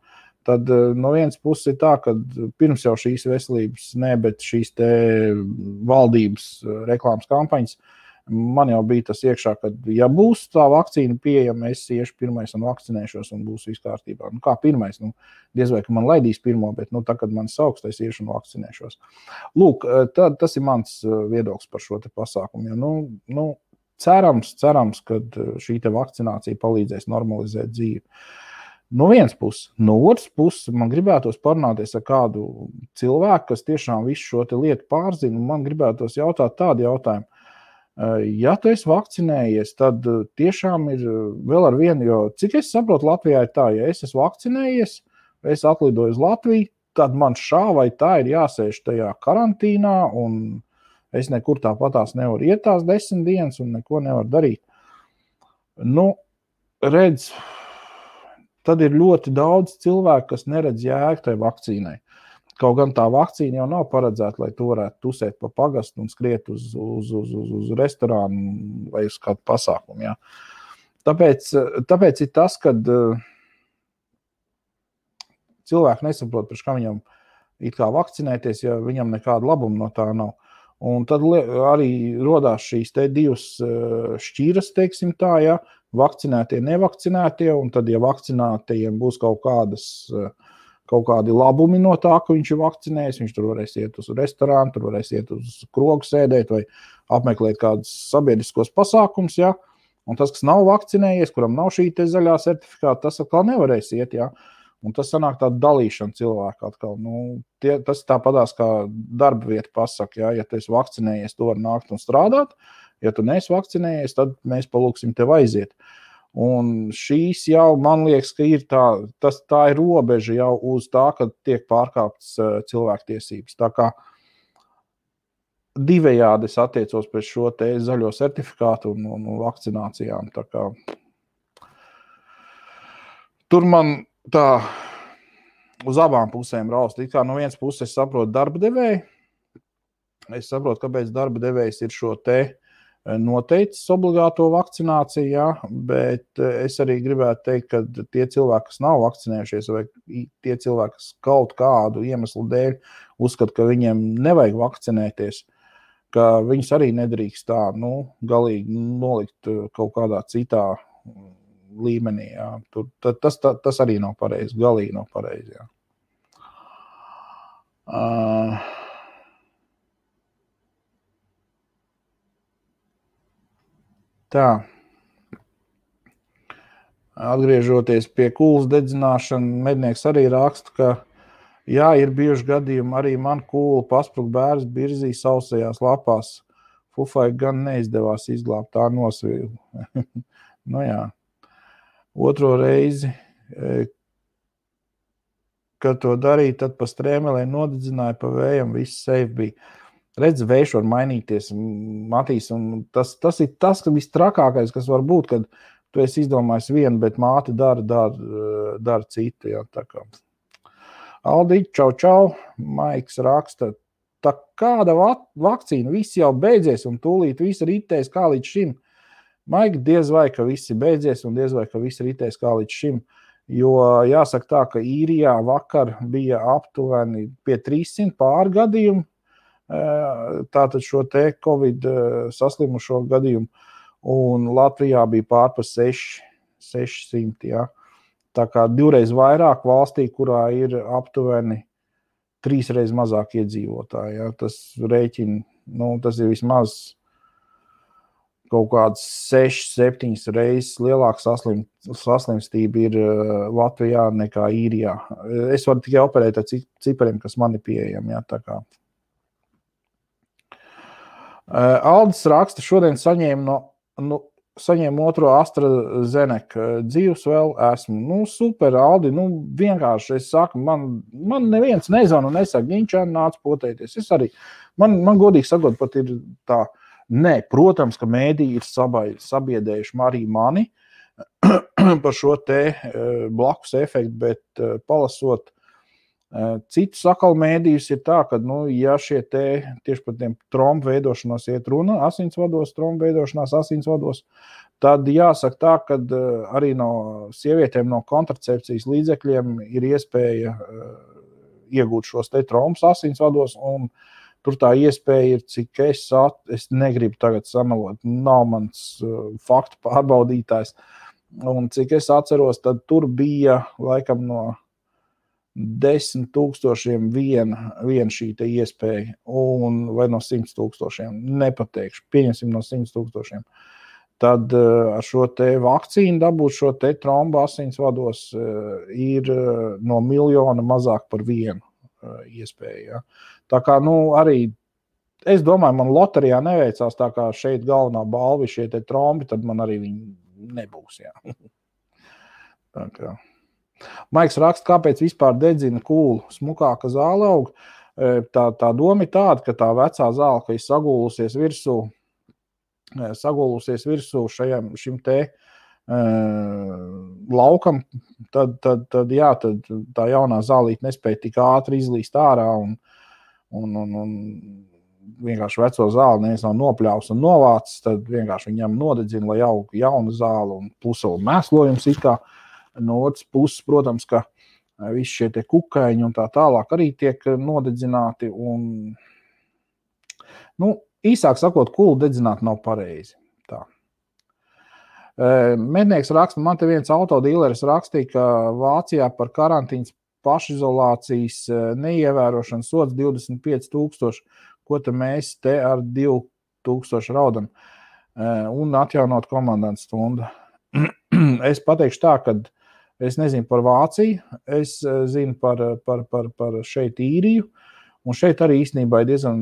Speaker 1: tad no vienas puses ir tā, ka pirms jau šīs veselības, bet šīs te valdības reklāmas kampaņas, man jau bija tas iekšā, ka ja būs tā vakcīna pieejama, es iešu pirmais un vakcinēšos un būs viss kārtībā. Kā pirmais? Diez vai, ka man laidīs pirmo, bet tā, kad man sauks, es iešu un vakcinēšos. Lūk, tas ir mans viedoklis par šo te pasākumu. Ja, cerams, ka šī te vakcinācija palīdzēs normalizēt dzīvi. No vienas puses. No otras puses, man gribētos parunāties ar kādu cilvēku, kas tiešām visu šo te lietu pārzina, un man gribētos jautāt tādu jautājumu. Ja tu esi vakcinējies, tad tiešām ir vēl ar vienu, jo cik es saprotu, Latvijā ir tā, ja es esmu vakcinējies, es atlidoju uz Latviju, tad man šā vai tā ir jāsēž tajā karantīnā, un es nekur tāpatās nevaru iet tās 10 dienas un neko nevaru darīt. Redz, tad ir ļoti daudz cilvēku, kas neredz jēgu tai vakcīnai. Kaut gan tā vakcīna jau nav paredzēta, lai tu varētu tusēt pa pagastu un skriet uz restorānu vai uz kādu pasākumu. Ja. Tāpēc ir tas, kad cilvēki nesaprot, par kā viņam it kā vakcinēties, ja viņam nekāda labuma no tā nav. Un tad arī rodās šīs te divas šķiras, teiksim tā, ja, vakcinētie, nevakcinētie, un tad, ja vakcinētajiem būs kaut kādi labumi no tā, ka viņš ir vakcinējis, viņš tur varēs iet uz restorānu, tur varēs iet uz krogu sēdēt vai apmeklēt kādus sabiedriskos pasākums, ja, un tas, kas nav vakcinējies, kuram nav šī te zaļā certifikāta, tas atkal nevarēs iet, ja. Un tas sanāk tāda dalīšana cilvēku atkal. Tas tāpatās kā darba vieta pasaka, ja tu esi vakcinējies, tu vari nākt un strādāt. Ja tu neesi vakcinējies, tad mēs palūksim tev aiziet. Un šīs jau, man liekas, ka ir tā ir robeža jau uz tā, kad tiek pārkāptas cilvēktiesības. Tā kā divējādi es attiecos pret šo te zaļo certifikātu un vakcinācijām. Tā kā tur man tā uz abām pusēm raust. It kā no vienas puses es saprotu darba devēju. Es saprotu, kāpēc darba devējs ir šo te noteicis obligāto vakcināciju, ja, bet es arī gribētu teikt, ka tie cilvēki, kas nav vakcinējušies, vai tie cilvēki, kas kaut kādu iemeslu dēļ uzskata, ka viņiem nevajag vakcinēties, ka viņus arī nedrīkst tā, galīgi nolikt kaut kādā citā līmenī. Ja. Tas arī nav pareizi, galīgi nav pareizi. Ja. Tā. Atgriežoties pie kūlas dedzināšana, mednieks arī raksta, ka jā, ir bijuši gadījumi, arī man kūla pasprūk bērns birzī sausajās lapās. Fufai gan neizdevās izglābt, tā nosvīlu. Jā. Otro reizi, kad to darīja, tad pa strēmelē nodedzināja, pa vējam, viss safe bija. Redz, vējš var mainīties, Matīs, un tas ir tas, ka vistrakākais, kas var būt, kad tu esi izdomājis vienu, bet māte dara citu. Ja, tā kā. Aldi, čau, Maiks raksta, tā kāda vakcīna, viss jau beidzies un tūlīt viss ritēs kā līdz šim. Maigi, diez vai, ka viss ir beidzies un diez vai, ka viss ritēs kā līdz šim. Jo jāsaka tā, ka Īrijā vakar bija aptuveni pie 300 pārgadījumu, tātad šo te Covid saslimušo gadījumu, un Latvijā bija pār pa 600, ja. Tā kā 2 reiz vairāk valstī, kurā ir aptuveni 3 reiz mazāk iedzīvotāji, ja. Tas rēķina, tas ir vismaz kaut kāds 6-7 reizes lielāka saslimstība ir Latvijā nekā Īrijā. Es varu tikai operēt ar cipariem, kas man ir pieejami, ja, tā kā. Aldis raksta, šodien saņēmu otro AstraZeneca, dzīvs vēl esmu. Super, Aldi, vienkārši es saku, man neviens nezvana un nesaka, ņiņčēn nāc potēties. Es arī, man godīgi sakot, pat ir tā, protams, ka mēdī ir sabiedējuši arī mani par šo te blakus efektu, bet palasot citus sakal mēdījus ir tā, ka, ja šie tieši par tiem trombu veidošanos iet runa, trombu veidošanās asinsvados, tad jāsaka tā, ka arī no sievietēm no kontracepcijas līdzekļiem ir iespēja iegūt šos te trombus asinsvados, un tur tā iespēja ir, cik es negribu tagad samelot, nav mans faktu pārbaudītājs, un cik es atceros, tad tur bija laikam no 10,000 vien šī te iespēja, vai no 100,000, nepateikšu, pieņemsim no 100,000. Tad ar šo te vakcīnu dabūt šo te trombu asinsvados ir no 1 miljona mazāk par vienu iespēju. Ja. Tā kā, arī, es domāju, man loterijā neveicās, tā kā šeit galvenā balva šie te trombi, tad man arī viņi nebūs. Ja. Tā kā. Maiks raksta, kāpēc vispār dedzina kūlu, smukāka zāle aug. Tā doma ir tāda, ka tā vecā zāle, ka ir sagulusies virsū šim te laukam, tad tā jaunā zālīte nespēja tik ātri izlīst ārā un vienkārši veco zāli neviens nav nopļāvis un novācis, tad vienkārši viņam nodedzina, lai aug jauna zāle un plus vēl mēslojums it kā. No otras puses, protams, ka visi šie te kukaiņi un tā tālāk arī tiek nodedzināti. Un, īsāk sakot, kulu dedzināt nav pareizi. Tā. Mednieks raksta, man te viens autodīleris rakstīja, ka Vācijā par karantīnas pašizolācijas neievērošanu sods 25,000, ko te mēs te ar 2,000 raudam un atjaunot komandantu stundu. Es pateikšu tā, ka es nezinu par Vāciju, es zinu par šeit Īriju, un šeit arī īstenībā ir diezgan,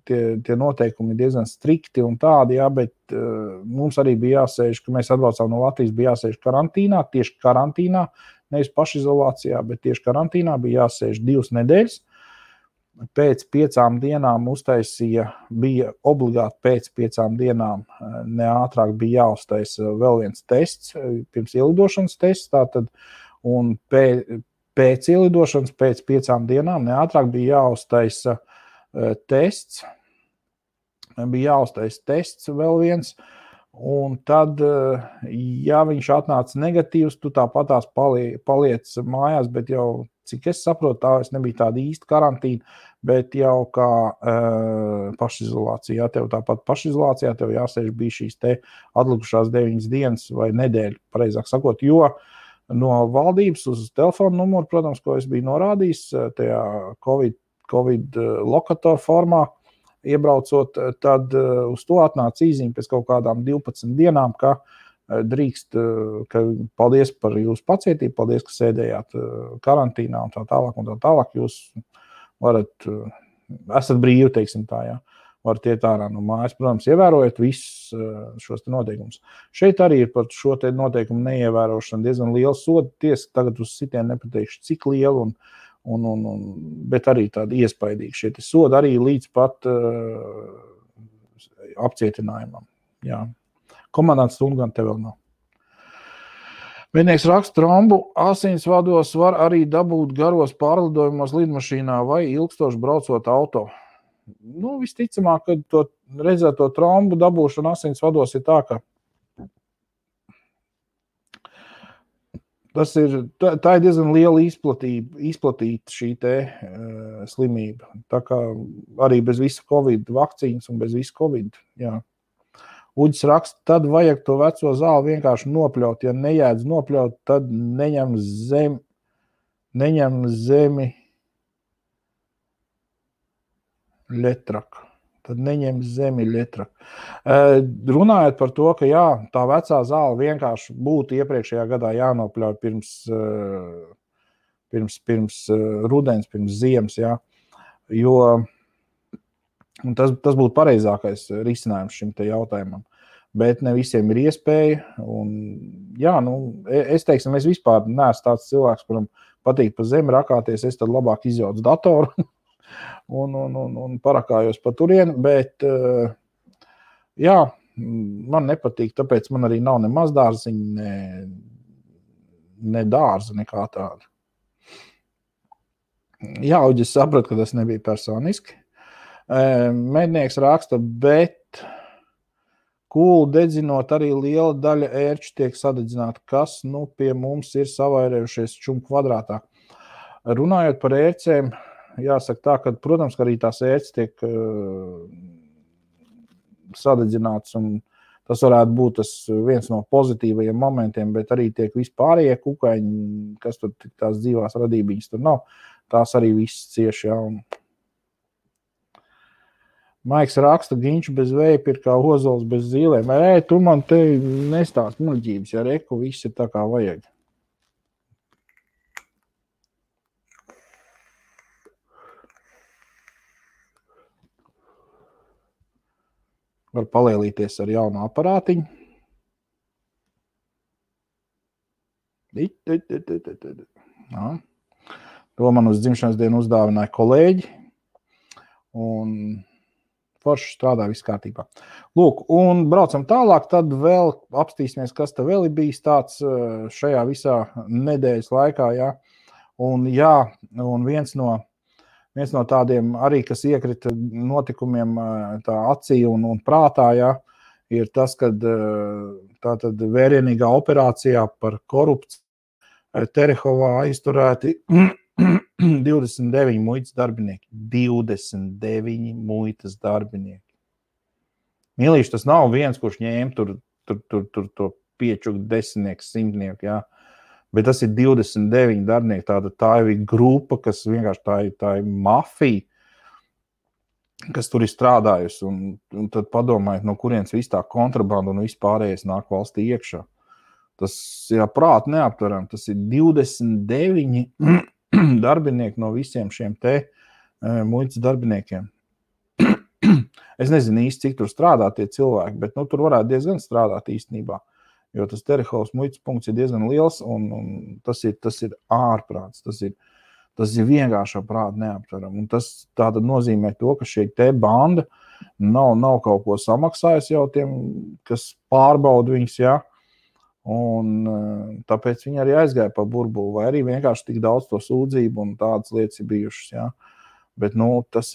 Speaker 1: tie noteikumi ir diezgan strikti un tādi, jā, bet mums arī bija jāsēž, ka mēs atbraucām no Latvijas, bija jāsēž karantīnā, tieši karantīnā, nevis pašizolācijā, bet tieši karantīnā bija jāsēž 2 nedēļas, pēc 5 dienām uztaisīja, bija obligāti pēc 5 dienām, ne ātrāk bija jāuztaisa vēl viens tests, pirms ielidošanas tests, tātad, un pēc ielidošanas, pēc 5 dienām, ne ātrāk bija jāuztaisa tests, vēl viens, un tad, ja viņš atnāca negatīvs, tu tāpatās paliec mājās, bet jau, cik es saprotu, tā es nebija tāda īsta karantīna, bet jau kā pašizolācijā, tev tāpat pašizolācijā, tev jāsēž bija šīs te atlikušās 9 dienas vai nedēļa, pareizāk sakot, jo no valdības uz telefonu numuru, protams, ko es biju norādījis, tajā Covid lokatoru formā, iebraucot, tad uz to atnāca īziņa pēc kaut kādām 12 dienām, ka drīkst, ka paldies par jūsu pacietību, paldies, ka sēdējāt karantīnā un tā tālāk, jūs esat brīvi, teiksim tā, jā, varat iet ārā no mājas, protams, ievērojot visus šos te noteikumus. Šeit arī ir par šo te noteikumu neievērošanu diezgan liela soda, tiesa tagad uz sitienu nepateikšu, cik liela, bet arī tādi iespaidīgi šie te sodi arī līdz pat apcietinājumam, jā. Komandants stundu gan te vēl nav. Mednieks raksta, trombu asinsvados var arī dabūt garos pārlidojumos lidmašīnā vai ilgstoši braucot auto. Nu, visticamāk, kad to redzēto trombu dabūšana asinsvados ir tā, ka tā ir diezgan liela izplatīta šī te slimība. Tā kā arī bez visa Covid vakcīnas un bez visa Covid, jā. Uģis raksta, tad vajag to veco zāli vienkārši nopļaut. Ja nejēdz nopļaut, tad neņem zemi ļetraku. Runājot par to, ka jā, tā vecā zāle vienkārši būtu iepriekšējā gadā jānopļauj pirms rudens, pirms ziemas, jā. Jo tas būtu pareizākais risinājums šim te jautājumam. Bet ne visiem ir iespēja. Un, jā, es teiksim, es vispār neesmu tāds cilvēks, kuram patīk pa zemi rakāties, es tad labāk izjaucu datoru un parakājos pa turieni, bet jā, man nepatīk, tāpēc man arī nav ne mazdārziņa, ne dārza, nekā tāda. Jā, Uģis saprata, ka tas nebija personiski. Mednieks raksta, bet kūlu dedzinot arī liela daļa ērču tiek sadedzināta, kas pie mums ir savairējušies čumu kvadrātā. Runājot par ērcēm, jāsaka tā, ka, protams, ka arī tās ērces tiek sadedzināts, un tas varētu būt viens no pozitīvajiem momentiem, bet arī tiek vispārējie kukaiņi, kas tur tās dzīvās radībiņas tur nav, tās arī viss cieši, jā. Maiks raksta, ginču bez veipa ir kā ozols bez zīlēm. Tu man te nestāst muļķības, ja reku viss ir tā kā vajag. Var palielīties ar jaunu aparātiņu. To man uz dzimšanas dienu uzdāvināja kolēģi. Un forši strādā viss kārtībā. Lūk, un braucam tālāk, tad vēl apstīsimies, kas te vēl ir bijis tāds šajā visā nedēļas laikā, jā. Un jā, un viens no tādiem arī, kas iekrita notikumiem tā acī un prātā, jā, ir tas, kad tātad vērienīgā operācijā par korupciju Terehovā aizturēti 29 muitas darbinieki. 29 muitas darbinieki. Mīlīši, tas nav viens, kurš ņēma tur to piečuku desmitnieku, simtnieku, jā. Bet tas ir 29 darbinieki. Tā ir grupa, kas vienkārši tā ir mafija, kas tur ir strādājusi. Un tad padomājiet, no kurienes viss tā kontrabanda un viss pārējais nāk valstī iekšā. Tas ir prāt neaptveram. Tas ir 29 darbinieki no visiem šiem te muitas darbiniekiem. Es nezinu īsti, cik tur strādā tie cilvēki, bet tur varētu diezgan strādāt īstenībā, jo tas Terehovas muitas punkts ir diezgan liels un tas ir ārprāts. Tas Tas ir vienkārši prāti neaptveram. Un tas tātad nozīmē to, ka šī te banda nav kaut ko samaksājusi jau tiem, kas pārbauda viņus, jā. Un tāpēc viņi arī aizgāja pa burbuli, vai arī vienkārši tik daudz to sūdzību un tādas lietas ir bijušas, jā. Bet, tas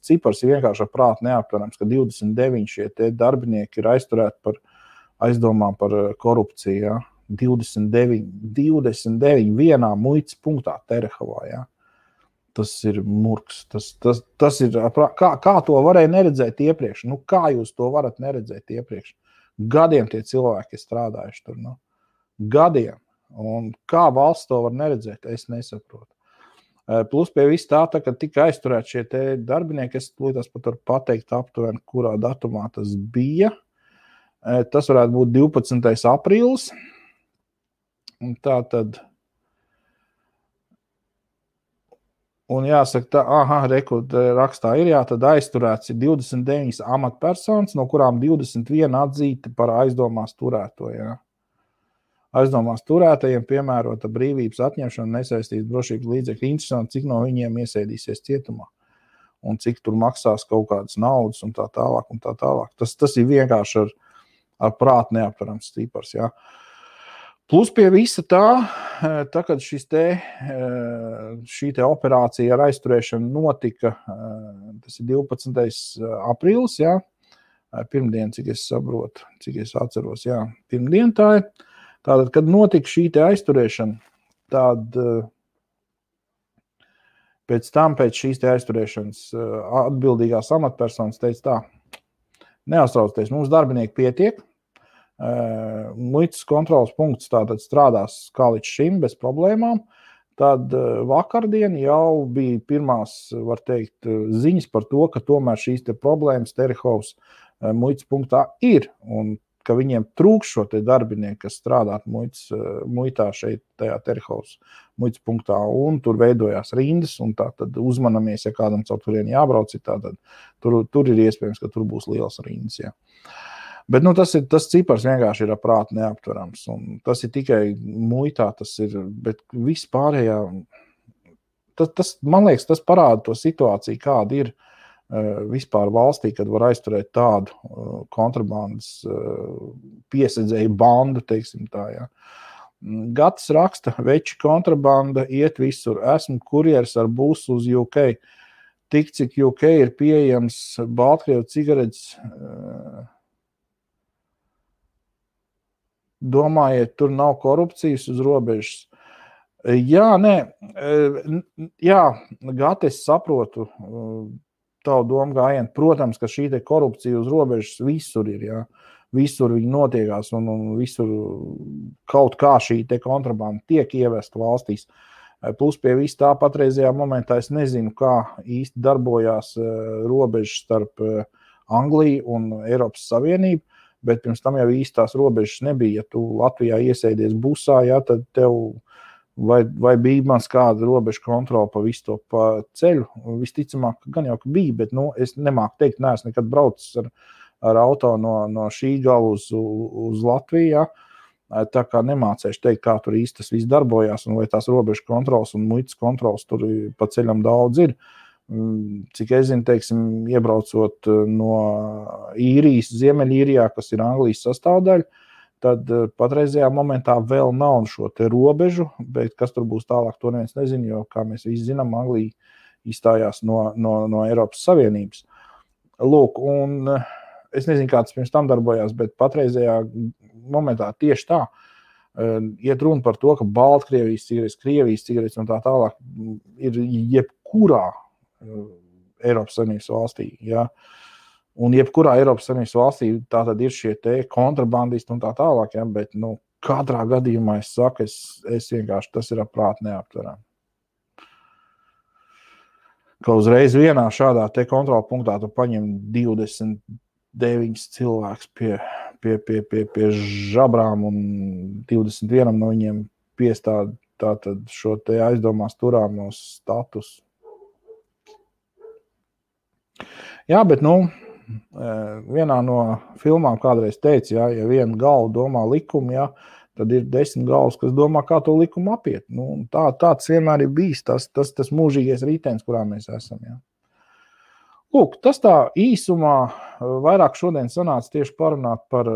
Speaker 1: cipars ir vienkārši prāti neaptverams, ka 29 šie te darbinieki ir aizturēti par aizdomām par korupciju, jā. 29 vienā muitas punktā Terehovā, jā. Tas ir murgs. Tas ir, kā to varēja neredzēt iepriekš? Kā jūs to varat neredzēt iepriekš? Gadiem tie cilvēki ir strādājuši tur, gadiem. Un kā valsts to var neredzēt, es nesaprotu. Plus pie viss tā, ka tika aizturēti šie te darbinieki, es līdz pat varu pateikt aptuveni, kurā datumā tas bija. Tas varētu būt 12. aprīlis. Un tā tad, un jāsaka, rakstā ir, tad aizturēts ir 29 amatpersonas, no kurām 21 atzīti par aizdomās turēto, jā. Aizdomās turētajiem piemērota brīvības atņemšana nesaistīs drošības līdzekļu. Interesanti, cik no viņiem iesēdīsies cietumā un cik tur maksās kaut kādas naudas un tā tālāk un tā tālāk. Tas ir vienkārši ar prātu neaptverams cipars, jā. Plus pie visa tā, kad šī te operācija ar aizturēšanu notika, tas ir 12. aprīlis, jā, pirmdien, cik es saprotu, cik es atceros, jā, pirmdien tā ir. Tātad, kad notika šī te aizturēšana, tad pēc šīs te aizturēšanas atbildīgās amatpersonas teica tā, neuztraucieties, mums darbinieki pietiek, muitas kontrolas punkts tātad strādās kā līdz šim bez problēmām, tad vakardien jau bija pirmās, var teikt, ziņas par to, ka tomēr šīs te problēmas Terehovas muitas punktā ir, un ka viņiem trūks šo te darbinieku, kas strādāt muitā šeit tajā Terehovas muitas punktā, un tur veidojās rindas, un tā tad uzmanamies, ja kādam caur turien jābrauc, tātad tur ir iespējams, ka tur būs liels rindas, jā. Bet, tas cipars vienkārši ir ar prātu neaptverams, un tas ir tikai muitā, bet viss pārējā, man liekas, tas parāda to situāciju, kāda ir vispār valstī, kad var aizturēt tādu kontrabandas piesedzēju bandu, teiksim tā, jā. Gatis raksta, veči kontrabanda iet visur, esmu kurjeris ar būsu uz UK, tik cik UK ir pieejams Baltkrievu cigaretes, domājiet, tur nav korupcijas uz robežas. Jā, Gati, es saprotu tavu domu gājienu. Protams, ka šī te korupcija uz robežas visur ir, jā. Visur viņi notiekās un visur kaut kā šī te kontrabanda tiek ievesta valstīs. Plus pie viss tā patreizajā momentā es nezinu, kā īsti darbojās robežas starp Angliju un Eiropas Savienību, bet pirms tam jau īstās robežas nebija. Ja tu Latvijā iesēdies busā, jā, tad tev vai bija mans kāda robeža kontrola pa visu to pa ceļu. Visticamāk, gan jau, ka bija, bet es nemāku teikt, neesmu nekad braucis ar auto no šī gala uz Latviju, jā. Tā kā nemācēšu teikt, kā tur īsti tas viss darbojās un vai tās robežu kontrolas un muitas kontrolas tur pa ceļam daudz ir. Cik es zinu, teiksim, iebraucot no Īrijas, Ziemeļīrijā, kas ir Anglijas sastāvdaļa, tad patreizajā momentā vēl nav šo te robežu, bet kas tur būs tālāk, to neviens nezinu, jo, kā mēs visi zinām, Anglija izstājās no Eiropas Savienības. Lūk, un es nezinu, kā tas pirms tam darbojās, bet patreizajā momentā tieši tā iet runa par to, ka Baltkrievijas cigaretes, Krievijas cigaretes un tā tālāk ir jebkurā Eiropas Savienības valstī, jā. Un jebkurā Eiropas Savienības valstī tā tad ir šie te kontrabandisti un tā tālāk, jā, bet, katrā gadījumā es saku, es vienkārši, tas ir prāti neaptveram. Ka uzreiz vienā šādā te kontrola punktā tu paņem 29 cilvēks pie žabrām un 21 no viņiem piestāda tātad šo te aizdomās turāmo status. Jā, bet, vienā no filmām kādreiz teica, ja viena galva domā likumu, ja, tad ir 10 galvas, kas domā, kā to likumu apiet. Nu, tāds vienmēr ir bijis tas mūžīgais ritenis, kurā mēs esam. Ja. Lūk, tas tā īsumā vairāk šodien sanāca tieši parunāt par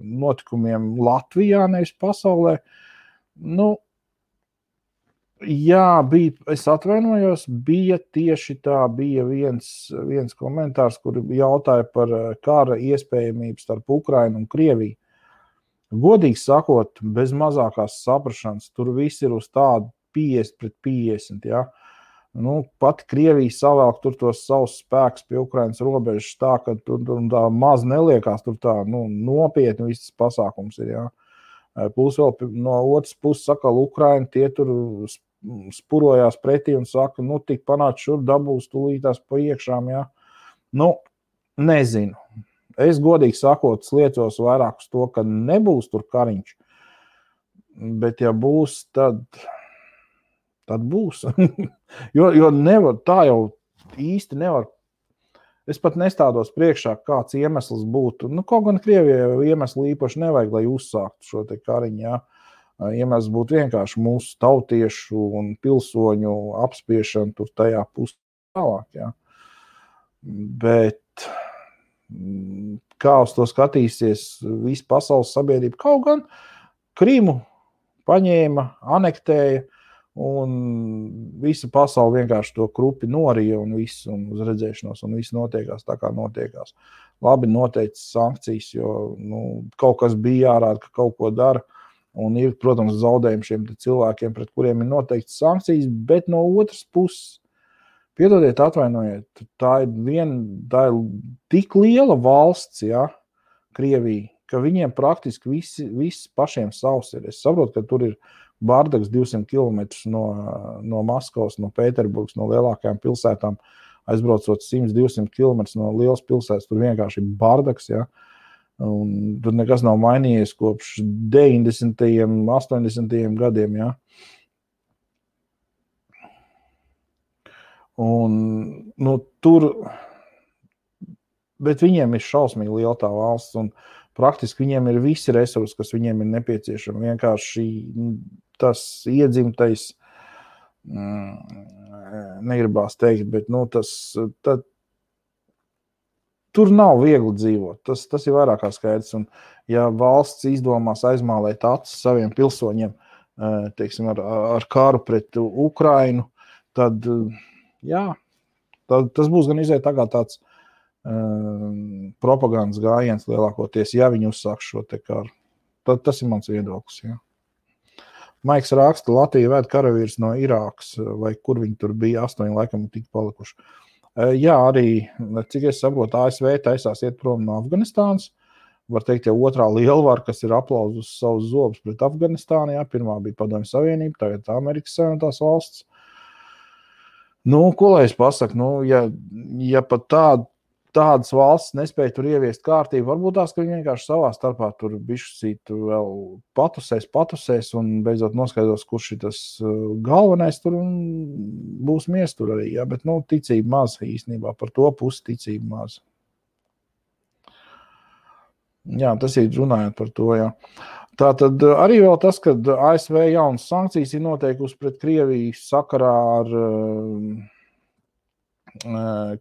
Speaker 1: notikumiem Latvijā, nevis pasaulē. Nu, jā, es atvainojos, bija viens komentārs, kur jautāja par kara iespējamību starp Ukrainu un Krieviju. Godīgi sakot, bez mazākās saprašanas, tur viss ir uz tādu 50-50, ja. Nu, pat Krievija savēlk tur tos savus spēkus pie Ukrainas robežas tā, ka tur tā maz neliekās, tur tā nopietni viss pasākums ir, ja. Plus vēl no otras puses saka, Ukraina tie tur spurojās pretī un saka, nu, tik panāc šur dabūs tūlītās pa iekšām, jā. Nu, nezinu. Es godīgi sakot, sliecos vairāk uz to, ka nebūs tur kariņš, bet ja būs, tad būs. jo nevar, tā jau īsti nevar. Es pat nestādos priekšā, kāds iemesls būtu. Nu, kaut gan Krievijai iemesli īpaši nevajag, lai uzsāktu šo te kariņu, jā. Iemesls būtu vienkārši mūsu tautiešu un pilsoņu apspiešana tur tajā pusē tālāk. Ja. Bet kā uz to skatīsies visa pasaules sabiedrība? Kaut gan Krimu paņēma, anektēja un visa pasaule vienkārši to krupi norija un viss un uz redzēšanos un viss notiekās tā, kā notiekās. Labi noteikts sankcijas, jo kaut kas bija jārāda, ka kaut ko dara. Un ir, protams, zaudējumi šiem cilvēkiem, pret kuriem ir noteikts sankcijas, bet no otras puses, piedodiet, atvainojiet, tā ir tik liela valsts, ja, Krievija, ka viņiem praktiski viss pašiem savs ir. Es saprotu, ka tur ir bardaks 200 km no Maskavas, no Pēterburgas, no lielākajām pilsētām, aizbraucot 100-200 km no lielas pilsētas, tur vienkārši ir bardaks, ja. Un tur nekas nav mainījies kopš 90. 80. gadiem, ja. Un, tur, bet viņiem ir šausmīgi liela tā valsts, un praktiski viņiem ir visi resursi, kas viņiem ir nepieciešami. Vienkārši tas iedzimtais, negribās teikt, bet, tur nav viegli dzīvot. Tas ir vairāk kā skaidrs. Un, ja valsts izdomās aizmālēt acis saviem pilsoņiem, teiksim, ar karu pret Ukrainu, tad, jā, tas būs gan iziet tagad tāds propagandas gājiens lielākoties, ja viņi uzsāks šo te karu. Tas ir mans viedoklis, jā. Maiks raksta, Latvija vēd karavīrus no Irākas, vai kur viņi tur bija, 8 laikam tik palikuši. Jā, arī, cik es saprotu, ASV taisās iet prom no Afganistānas. Var teikt, ja otrā lielvara, kas ir aplauzus savus zobus pret Afganistānu, jā, pirmā bija Padomju Savienība, tagad Amerikas Savienotās valsts. Ko lai es pasaku? Ja pat tādas valsts nespēja tur ieviest kārtību, varbūt tās, ka viņi vienkārši savā starpā tur bišķīt vēl patusēs un beidzot noskaidros, kurš ir tas galvenais tur un būs mies tur arī, jā, bet, ticība maz īstenībā, par to pusi ticība maz. Jā, tas ir runājot par to, jā. Tātad arī vēl tas, ka ASV jaunas sankcijas ir noteikusi pret Krieviju sakarā ar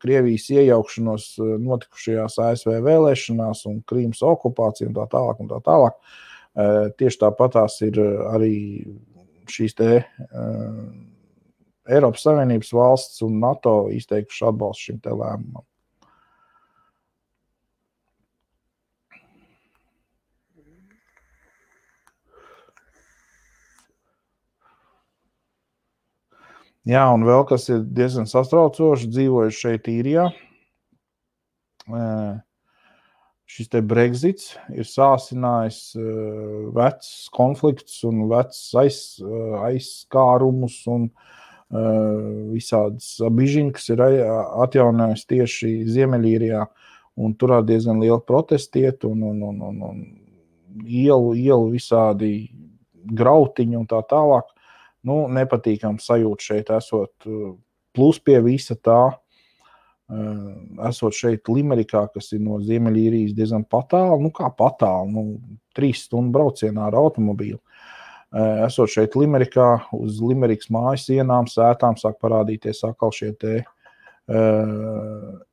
Speaker 1: Krievijas iejaukšanos notikušajās ASV vēlēšanās un Krīmas okupācija un tā tālāk un tā tālāk. Tieši tāpatās ir arī šīs te Eiropas Savienības valsts un NATO izteikuši atbalstu šim te lēmumam. Jā, un vēl kas ir diezgan sastraucoši, dzīvojuši šeit Īrijā. Šis te Brexits ir sāsinājis vecs konflikts un vecs aizskārumus un visādas bižiņas ir atjaunājis tieši Ziemeļīrijā. Un tur diezgan liela protestiet un ielu visādi grautiņi un tā tālāk. Nepatīkam sajūt šeit esot, plus pie visa tā, esot šeit Limerikā, kas ir no Ziemeļīrijas diezgan patāli, kā patāli, 3 stundu braucienā ar automobīlu. Esot šeit Limerikā, uz Limerikas mājas sienām, sētām sāk parādīties atkal šie te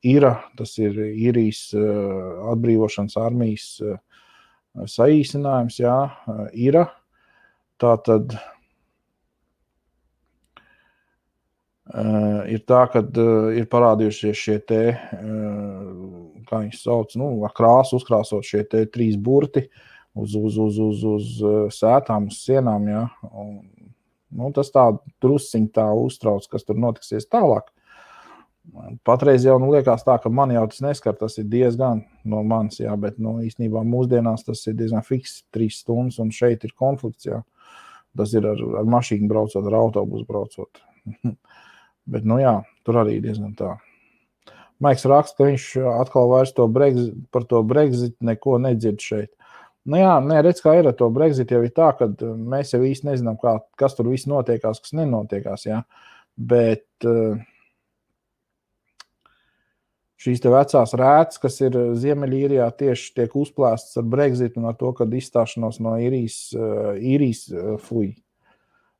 Speaker 1: IRA, tas ir Īrijas atbrīvošanas armijas saīsinājums, jā, IRA. Tātad ir tā, kad ir parādījušies šie te, kā viņi sauc, ar krāsu uzkrāsot šie te 3 burti uz sētām, uz sienām, jā. Un, tas tā drusciņ tā uztrauc, kas tur notiksies tālāk. Patreiz jau liekas tā, ka man jau tas neskar, tas ir diezgan no manis, jā, bet īstenībā mūsdienās tas ir diezgan fiks 3 stundas, un šeit ir konflikts, jā. Tas ir ar mašīnu braucot, ar autobusu braucot. Bet, jā, tur arī diezgan tā. Maiks raksta, ka viņš atkal vairs par to Brexit neko nedzird šeit. Jā, redz, kā ir ar to Brexit, jau ir tā, ka mēs jau īsti nezinām, kas tur viss notiekās, kas nenotiekās, jā. Bet šīs te vecās rētas, kas ir Ziemeļīrijā, tieši tiek uzplēstas ar Brexit un ar to, kad izstāšanos no īrijas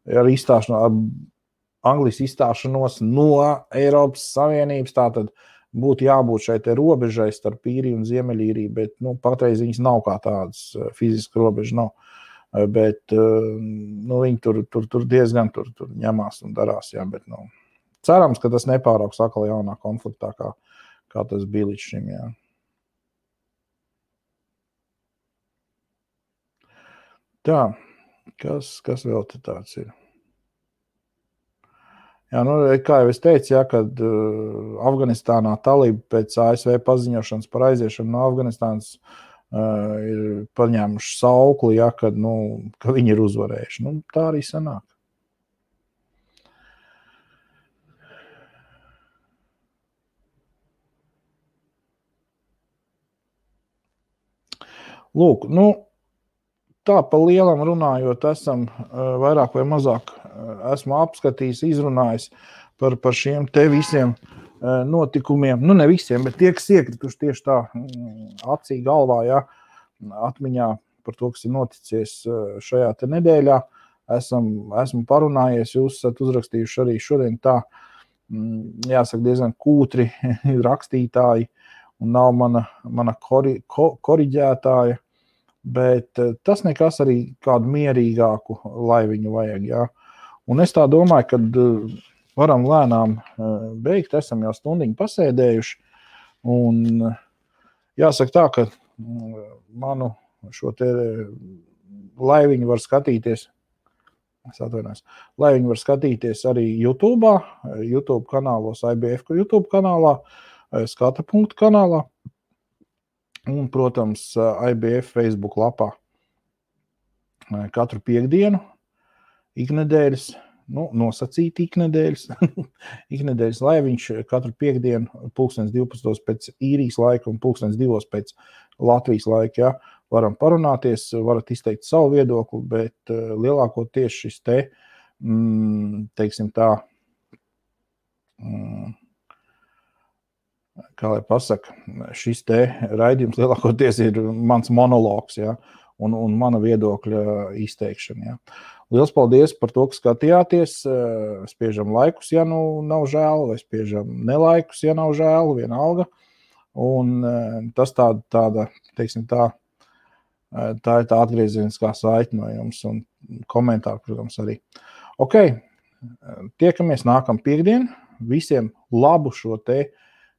Speaker 1: ar izstāšanos, ar Anglijas izstāšanos no Eiropas Savienības, tātad būtu jābūt šai te robežai starp Īriju un Ziemeļīriju, bet patreiz viņas nav kā tādas, fiziski robeža nav. Bet viņi tur diezgan tur ņemās un darās, jā, bet cerams, ka tas nepārauks atkal jaunā konfliktā, kā tas bija līdz šim, jā. Tā, kas vēl te tāds ir? Jā, kā jau es teicu, jā, kad Afganistānā talība pēc ASV paziņošanas par aiziešanu no Afganistānas ir paņēmuši saukli, jā, ka viņi ir uzvarējuši. Tā arī sanāk. Lūk, tā pa lielam runājot, esam vairāk vai mazāk esmu apskatījis, izrunājis par šiem te visiem notikumiem. Ne visiem, bet tie, kas iekrituši tieši tā acī galvā, jā, atmiņā par to, kas ir noticies šajā te nedēļā. Esmu parunājies, jūs esat uzrakstījuši arī šodien tā, jāsaka, diezgan kūtri rakstītāji un nav mana koriģētāja. Bet tas nekas arī kādu mierīgāku laiviņu vajag, jā. Un es tā domāju, ka varam lēnām beigt, esam jau stundiņu pasēdējuši, un jāsaka tā, ka manu šo te laiviņu var skatīties, laiviņu var skatīties arī YouTube kanālos, IBF YouTube kanālā, Skata.punktu kanālā, un, protams, IBF Facebook lapā katru piekdienu, iknedēļas, nosacīti iknedēļas laiviņš katru piekdienu 12:00 pēc Īrijas laika un 2:00 pēc Latvijas laika, jā. Varam parunāties, varat izteikt savu viedokli, bet lielākoties šis te, teiksim tā, kā lai pasaka, šis te raidījums lielākoties ir mans monologs, jā, un mana viedokļa izteikšana, jā. Liels paldies par to, ka skatījāties, spiežam laikus, ja nav žēl, vai spiežam nelaikus, ja nav žēl, vienalga, un tas tāda, teiksim tā ir tā atgriezieniskā saite no jums, un komentāri, protams, arī. Ok, tiekamies nākam piekdien, visiem labu šo te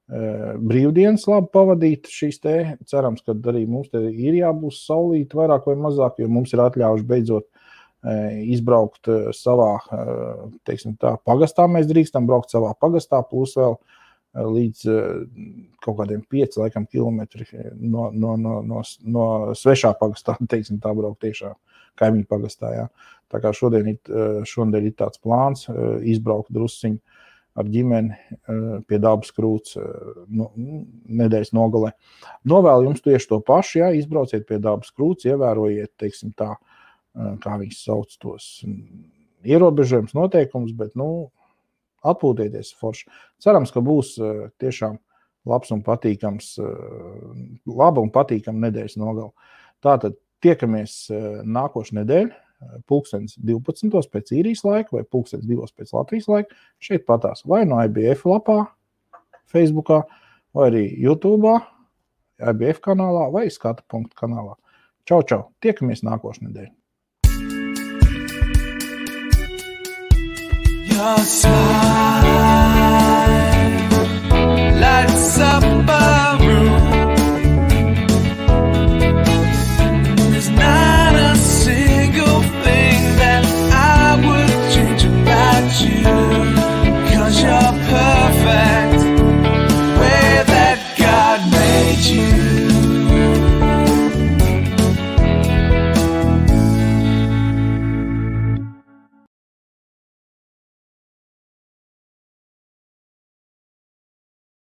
Speaker 1: brīvdienas labi pavadīt šīs te, cerams, ka arī mums te ir jābūs saulīt vairāk vai mazāk, jo mums ir atļaujuši beidzot izbraukt savā, teiksim tā, pagastā, mēs drīkstam braukt savā pagastā, plus vēl līdz kaut kādiem 5 laikam kilometri no svešā pagastā, teiksim tā, braukt tiešā kaimiņu pagastā, jā. Tā kā šodien ir tāds plāns izbraukt drusciņu ar ģimeni pie Dabas krūts nedēļas nogalē. Novēlu jums tieši to pašu, jā, izbrauciet pie Dabas krūts, ievērojiet, teiksim tā, kā viņš sauc tos ierobežojums noteikums, bet, atpūtieties forši. Cerams, ka būs tiešām laba un patīkama nedēļas nogala. Tātad tiekamies nākošu nedēļu, 12:00 pēc īrijas laika vai 2:00 pēc Latvijas laika. Šeit patās vai no IBF lapā, Facebookā, vai arī YouTube, IBF kanālā vai Skatu.pt kanālā. Čau, čau! Tiekamies nākošu nedēļu! Your side.